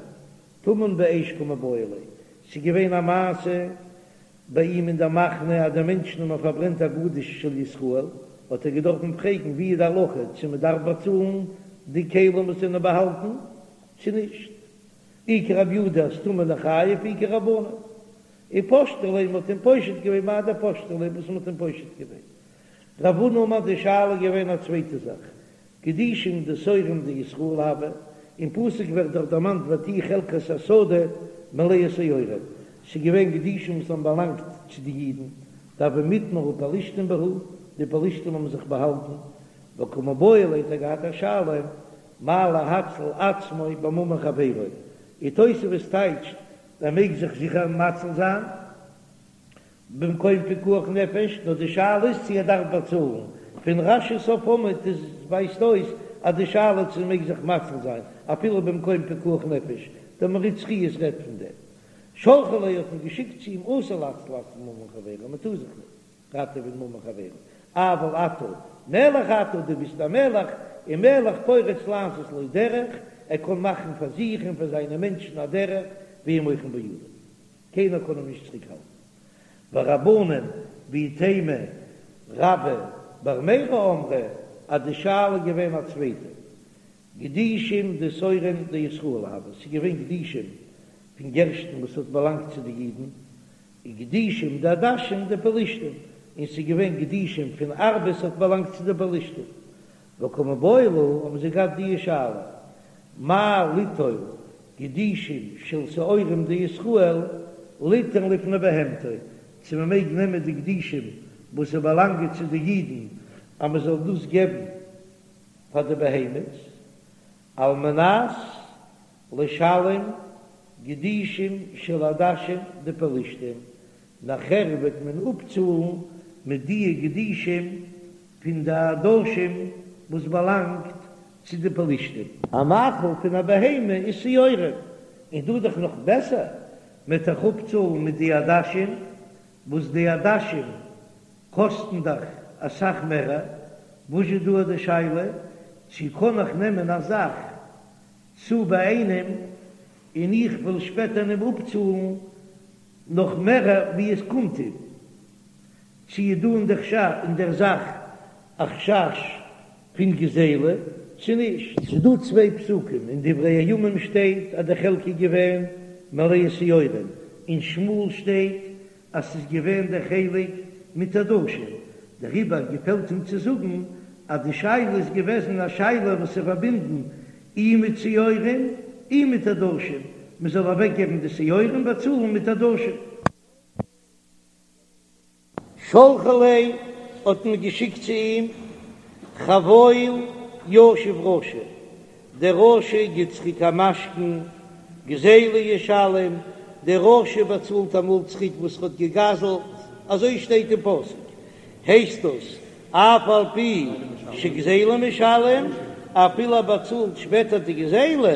טמון באש קא מיבעיא ליה, ס'איז געווען א מעשה ביי אים אין דער מחנה אז די מענטשן האבן פארברענט א גדיש של ישראל, האט ער געדארפן פרעגן ווי איז די הלכה צו מען דארף באצאלן די כלים וואס זענען באהאלטן צו נישט, אי כרבי יהודה אז טמון ניחייב אי כרבנן, ופשטו ליה, מ'האט אים פושט געווען מאי דפשטו ליה וואס מ'האט אים פושט געווען. רב הונא אמר די שאלה איז געווען א צווייטע זאך, גדישים דשעורים דישראל הוו, אין פסוק ווערט דאך דערמאנט ותהי חלקת השדה מלאה שעורים, ס'איז געווען גדישים וואס האבן באלאנגט צו די אידן, דהוו מטמרי פלשתים בהו, די פלשתים האבן זיך באהאלטן, וקא מיבעיא ליה האט ער געהאט א שאלה, מהו להציל עצמו בממון חברו, און תוספות טייטשט ער מעג זיך זיכער מציל זיין. במקום פיקוח נפש, נאר די שאלה איז צו ער דארף באצאלן, פון רש"י סוף עמוד איז ווייזט אויס אז די שאלה צו מעג זיך מציל זיין אפילו במקום פיקוח נפש, דער מהרי"ץ חיות רעדט פון דעם. שלחו ליה האט מען געשיקט צו אים אסור להציל עצמו בממון חברו, מען טאר זיך נישט. ראטעווען ממון חברו, אבל אתה מלך אתה, דו ביסט א מלך, און מלך פורץ לעשות לו דרך, ער קען מאכן פאר זיך און פאר זיינע מענטשן א דרך, ואין מוחין בידו, קיינער קען אים נישט צוריק האלטן. ורבנן ואיתימא רבה בר מרי אמרי אז די שאלה איז געווען א צווייטע, גדישים דשעורים דישראל הוו, ס'איז געווען גדישים פון גערשטן וואס האט באלאנגט צו די אידן, וגדישים דעדשים דפלשתים, און ס'איז געווען גדישים פון ארבעס האט באלאנגט צו די פלשתים. וקא מיבעיא להו האבן זיי געהאט די שאלה, מהו ליטול גדישים של שעורים דישראל ליתן לפני בהמתו, צו מען מעג נעמען די גדישים וואס ס'באלאנגען צו די אידן אז מען זאל דאס געבן פאר די בהמות, על מנת לשלם גדישים של עדשים דפלשתים, נאכער וועט מען אפצאלן מיט די גדישים פון די עדשים וואס באלאנגט צו די פלשתים. א מאכל פון א בהמה איז שעורים, און דא דאך נאך בעסער, מען וועט דאך אפצאלן מיט די עדשים, וואס די עדשים קאסטן דאך אסאך מערער, וואס איז דא די שאלה צו קען איך נעמען א זאך צו ביי איינעם און איך וועל שפעטער אים אפצאלן נאך מערער ווי עס קומט אים, צו איז דא אין די חשש אין דער זאך א חשש פון גזילה צו נישט. ס'איז דא צוויי פסוקים, אין דברי הימים שטייט אז די חלקה איז געווען מלאה שעורים, אין שמואל שטייט אז ס'איז געווען דער חלק מיט עדשים, דעריבער געפעלט אים צו זאגן אז די שאלה איז געוועזן א שאלה וואס איז פארבינדן אי מיט שעורים אי מיט עדשים, מ'זאל אוועקגעבן די שעורים באצאלן מיט עדשים. שלחו ליה האט מען געשיקט צו אים, חבול ישיב רשע, דער רשע גיט צוריק א משכון, גזילה ישלם, דער רשע באצאלט אמאל צוריק וואס ער האט געגזלט, אזוי שטייט אין פסוק, הייסט דאס אף על פי שגזילה משלם, אפילו ער באצאלט שפעטער די גזילה,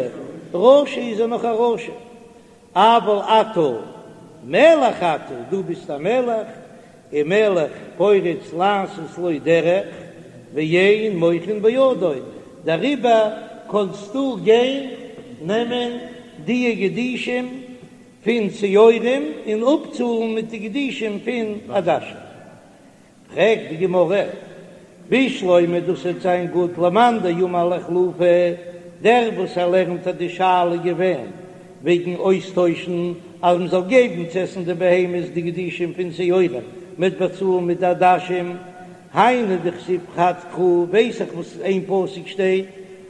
רשע איז ער נאך א רשע. אבל אתה מלך אתה, דו ביסט א מלך, ומלך פורץ לעשות לו דרך ואין מוחין בידו, דעריבער קענסטו גיין נעמען די גדישים פון שעורים און אפצאלן מיט די גדישים פון עדשים. פרעגט די גמרא, בשלמא דאס וועט זיין גוט למאן דאמר לאיחלופי, דער וואס ער לערנט אז די שאלה איז געווען וועגן אויסטוישן אז מען זאל געבן צו עסן די בהמות די גדישים פון שעורים מ'וועט באצאלן מיט די עדשים, היינו דכתיב חד קרא ווייס איך וואס אין פסוק שטייט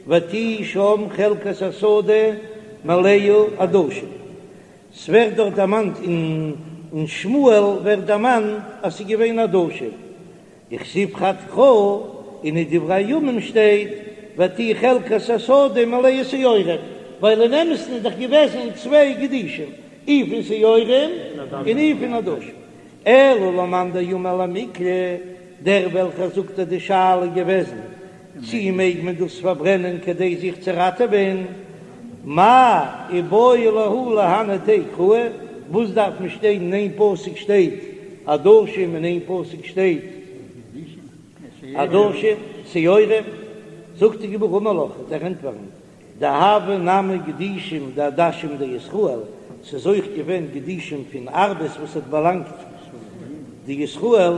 ותהי שם חלקת השדה מלאה עדשים. ס'ווערט דארט דערמאנט אין שמואל ווערט דערמאנט אז ס'איז געווען עדשים, וכתיב חד קרא, און אין דברי הימים שטייט ותהי חלקת השדה מלאה שעורים, ווייל אין אמת'ן איז דאך געוועזן צוויי גדישים, אי פון שעורים און אי פון עדשים. אלא למאן דאמר למיקלי, דער וועלכער זאגט אז די שאלה איז געוועזן צי מעג מען דאס פארברענען כדי זיך צו ראטעווען? מאי איבעיא להו להני תרי קראי, וואס דארף מען שטיין אין איין פסוק שטייט עדשים אין איין פסוק שטייט עדשים שעורים, זאגט די גמרא אמר לך וועט ער ענטפערן דהוו נמי גדישים דעדשים דישראל, ס'איז אויך געווען גדישים פון ארבעס וואס האט באלאנגט די ישראל,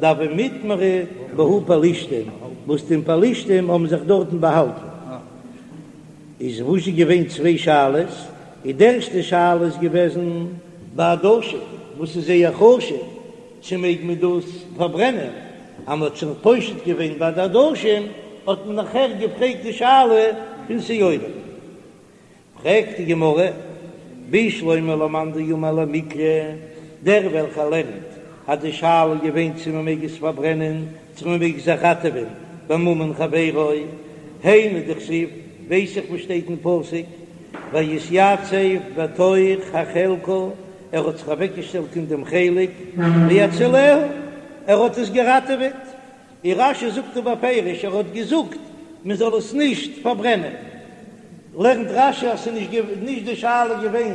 דהוו מטמרי בהו פלשתים, וואס די פלשתים האבן זיך דארטן באהאלטן. איז וואס איז געווען צוויי שאלות, די ערשטע שאלה איז געוועזן ביי עדשים וואס איז זייער חשוב, צו מעג מען דאס פארברענען? אז מען האט שוין פושט געווען ביי די עדשים, האט מען נאכער געפרעגט די שאלה פון שעורים. פרעגט די גמרא, בשלמא למאן דאמר למיקלי, דער וועלכער לערנט אז די שאלה איז געווען צו מען מעג עס פארברענען, צו מען מעג זיך ראטעווען בממון חברו, היינו דכתיב, ווייס איך וואס שטייט אין פסוק, ויתיצב בתוך החלקה, ער האט זיך אוועקגעשטעלט אין דעם חלק, ויצילהו, ער האט עס געראטעוועט, און רש"י זאגט דא בפירוש, ער האט געזאגט מען זאל עס נישט פארברענען, לערנט רש"י אז ס'איז נישט די שאלה געווען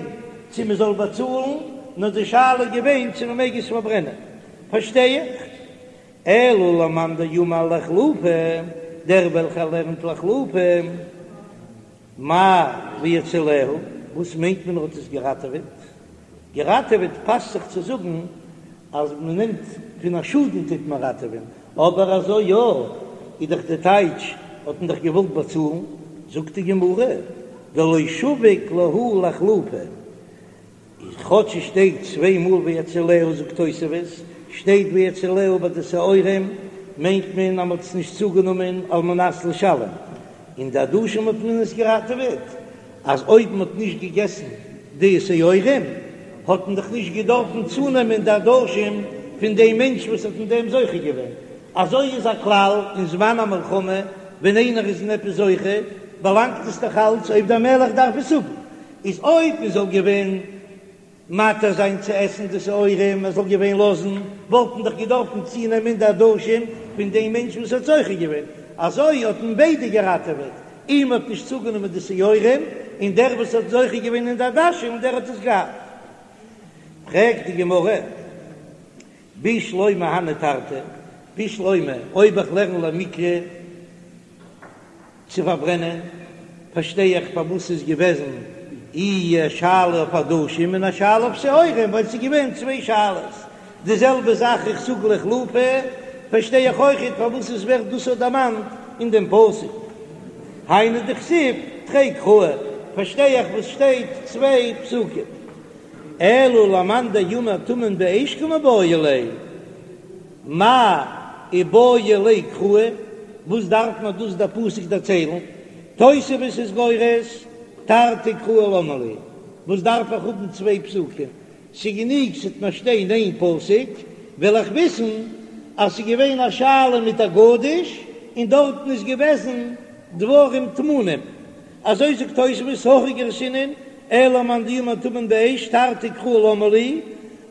צו מען זאל באצאלן, נאר די שאלה איז געווען צו מען מעג עס פארברענען, פארשטיי איך. אלא למאן דאמר לאחלופי, דער וועלכער לערנט לאחלופי, מאי והציליה, וואס מיינט מען ער האט עס געראטעוועט? געראטעוועט פאסט זיך צו זאגן אז מען נעמט פון א שאדן טוט מען ראטעווען, אבער אזוי יא איז דאך די טייטש האט מען דאך געוואלט באצאלן, זאגט די גמרא דלא שביק להו לאחלופי, איז כאטש עס שטייט צוויי מאל והציליה זאגט תוספות, שטייט והציליה ביי די שעורים מיינט מען אז מען האט עס נישט צוגענומען על מנת לשלם, און די עדשים האט מען עס געראטעוועט, אז אויב מען האט נישט געגעסן די שעורים האט מען דאך נישט געדארפן צונעמען די עדשים פון דעם מענטש וואס האט אין דעם זוכה געווען, אזוי איז א כלל אין זמן המלחמה ווען איינער איז אין עפעס זוכה באלאנגט עס דאך אלץ אויב דער מלך דארף עס האבן, איז אויב מען זאל געווען מתיר זיין צו עסן די שעורים, מען זאל געווען לאזן, וואלט מען דאך געדארפן צונעמען די עדשים פון דעם מענטש וואס האט זוכה געווען, אזוי האט מען ביידע געראטעוועט, אים האט נישט צוגענומען די שעורים, און דער וואס האט זוכה געווען אין די עדשים דער האט עס געהאט. פרעגט די גמרא, בשלמא הני תרתי, בשלמא אויב איך לערן למיקרי, צו פארברענען, פארשטיי איך פארוואס ס'איז געוועזן אי א שאלה אויף עדשים און א שאלה אויף שעורים, ווייל ס'איז געווען צוויי שאלות. די זעלבע זאך איך זאג לאחלופי, פארשטיי איך אויכעט פארוואס עס ווערט דאס אויך דערמאנט אין דעם פסוק. היינו דכתיב תרי קראי, פארשטיי איך וואס שטייט צוויי פסוקים. אלא למאן דאמר טמון באש קמיבעיא ליה. מאי איבעי ליה קראי, וואס דארף מיר דאס דער פסוק דערציילן? תוספות איז גורס תרתי קראי למה לי, וואס דארף איך האבן צוויי פסוקים? ס'גענוג ס'וועט מיר שטיין איין פסוק, וועל איך וויסן אז ס'איז געווען א שאלה מיט א גדיש און דארטן איז געוועזן דברים טמונים. אזוי זאגט תוספות הכי גרסינן, אלא למאן דאמר טמון באש תרתי קראי למה לי,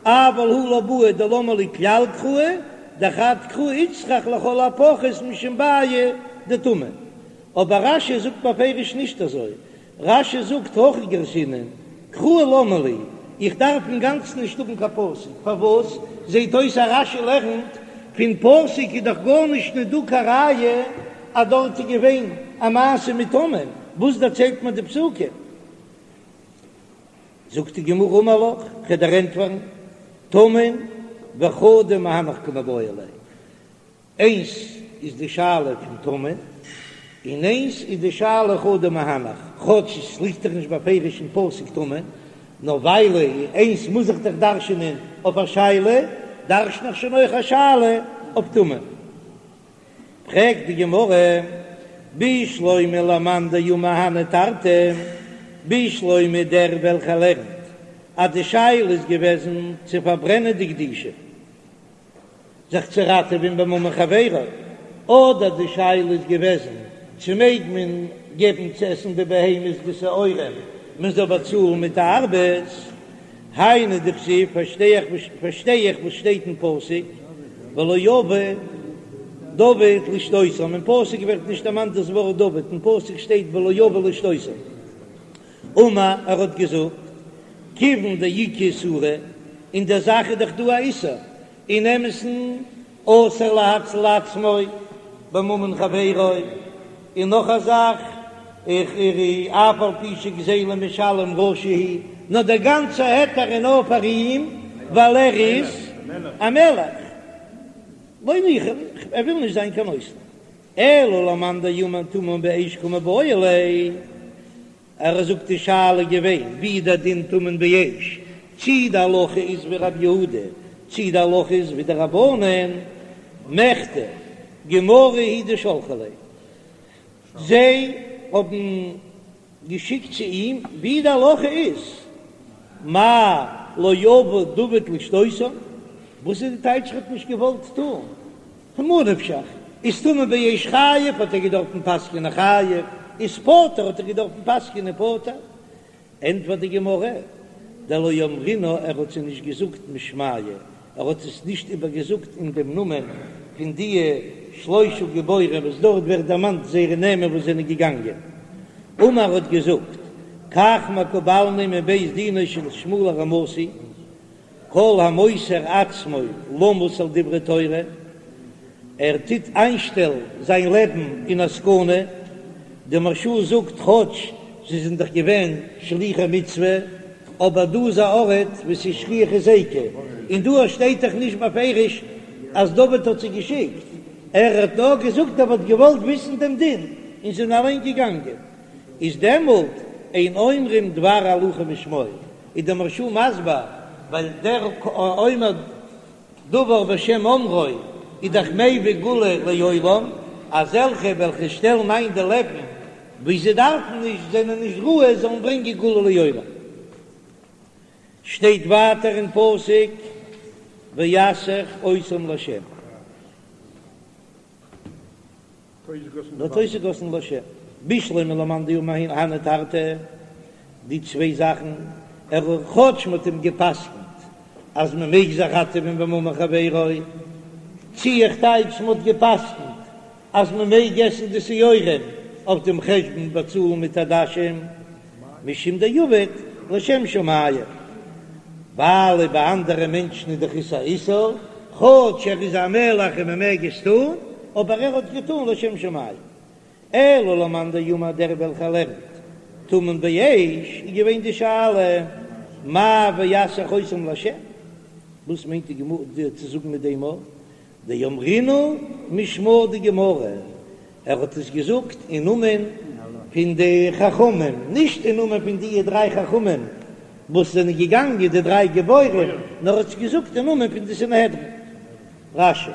אבל הא לא בעי דלמה לי כלל קראי, דחד קרא איצטריך לכל הפחות משום בעיא דטומאה. אבער רש"י זאגט בפירוש נישט אזוי, רש"י זאגט הכי גרסינן, קראי למה לי, איך דארף אינגאנצן נישט האבן קיין פסוק, פארוואס? זעט אויס אז רש"י לערנט פון פסוק איז דאך גארנישט נישט דא קיין ראיה אז דארט איז געווען א מעשה מיט טמון, וואס דערציילט מיר די פסוקים? זאגט די גמרא אמר לך, כ'וועל דיר ענטפערן, טמון וחדא מהנך קמיבעיא ליה, איינס איז די שאלה פון טמון, און איינס איז די שאלה חדא מהנך, כאטש עס ליגט דאך נישט בפירוש אין פסוק טמון, נאר ווייל איינס מוז איך דאך דרש'נען אויף א שאלה, דרש'ן איך שוין אויך א שאלה אויף טמון. פרעגט די גמרא, בשלמא למאן דאמר הני תרתי, בשלמא דער וועלכער לערנט אז די שאלה איז געוועזן צו פארברענען די גדישים זיך צו ראטעווען בממון חברו, אדער די שאלה איז געוועזן צו מעג מען געבן צו עסן די בהמות די שעורים מען זאל באצאלן מיט די ארבעס, היינו דכתיב, פארשטיי איך פארשטיי איך וואס שטייט אין פסוק, ולא אבה דוד לשתותם, אין פסוק ווערט נישט דערמאנט דאס ווארט דוד, אין פסוק שטייט ולא אבה לשתותם. אמר, ער האט געזאגט, כיוון דאיכא איסורא, אין דער זאך איז דאך דא א איסור, אין אמת'ן אסור להציל עצמו בממון חברו, און נאך א זאך, איך אף על פי שגזילה משלם רשע הוא, נאר דער גאנצער היתר איז נאר פאר אים ווייל ער איז א מלך, לא ניחא ליה, ער וויל נישט זיין קיין נותן, אלא למאן דאמר טמון באש קמיבעיא ליה. ער זאגט די שאלה געווען ווי דער דין טמון באש, צי די הלכה איז ווי רבי יהודה, צי די הלכה איז ווי די רבנן, מכדי גמרא הוא דשלחו ליה, זיי האבן געשיקט צו אים ווי די הלכה איז, מאי לא אבה דוד לשתותם, וואס איז די טייטש ער האט נישט געוואלט טון? ממה נפשך, איז טמון באש חייב האט ער געדארפן פסק'נען חייב, איז פטור האט ער געדארפן פסק'נען פטור. ענטפערט די גמרא, דלא אמרינהו ער האט זיי נישט געזאגט משמייהו, ער האט עס נישט איבערגעזאגט אין דעם נאמען פון די שלושה גיבורים וואס דארט ווערט דערמאנט זייערע נעמען וואס זענען געגאנגען. אמר האט געזאגט, כך מקובלני מבית דינו של שמואל הרמתי, כל המוסר עצמו למות על דברי תורה. ער טוט איינשטעלן זיין לעבן אין א סכנה, די מהרש"א זאגט כאטש זיי זענען דאך געווען שליחי מצוה, אבער דא איז א ארט וואו ס'איז שכיח היזיקא, און דא שטייט דאך נישט בפירוש אז דוד האט זיי געשיקט, ער האט נאר געזאגט ער וואלט געוואלט וויסן דעם דין, און זיי זענען אליין געגאנגען, איז דעמאלט אין אומרים דבר הלכה בשמו, איז דער מהרש"א מסביר ווייל דער אומר דבר בשם אומרו איז דאך מביא גאולה לעולם, אזעלכע וועלכע שטעלן איין די לעבן ווי זיי דארפן נישט, זענען נישט ראוי זאלן ברענגען גאולה לעולם. שטייט ווייטער אין פסוק ויסך אותם לה'. האט אויסגעגאסן לה'. בשלמא למאן דאמר הני תרתי, די צוויי זאכן, ער כאטש מ'האט אים גע'פסק'נט אז מ'מעג זיך ראטעווען בממון חברו, צי איך טייטש מ'האט גע'פסק'נט אז מ'מעג עסן די שעורים אויף דעם חשבון באצאלן מיט עדשים, משום דעבד לשם שמים, ווייל ביי אנדערע מענטשן איז דאך עס א איסור, כאטש ער איז א מלך און מען מעג עס טון, אבער ער האט געטון לשם שמים. אלא למאן דאמר דער וועלכער לערנט טמון באש, איז געווען די שאלה מאי ויסך אותם לה', וואס מיינט די גמרא צו זאגן מיט דעם דאמרינהו משמא דגמרא, ער האט עס געזאגט אין נאמען פון די חכמים, נישט אין נאמען פון די דריי חכמים וואס זענען געגאנגען, די דריי גיבורים, נאר ער האט עס געזאגט אין נאמען פון די סנהדרין. רש"י.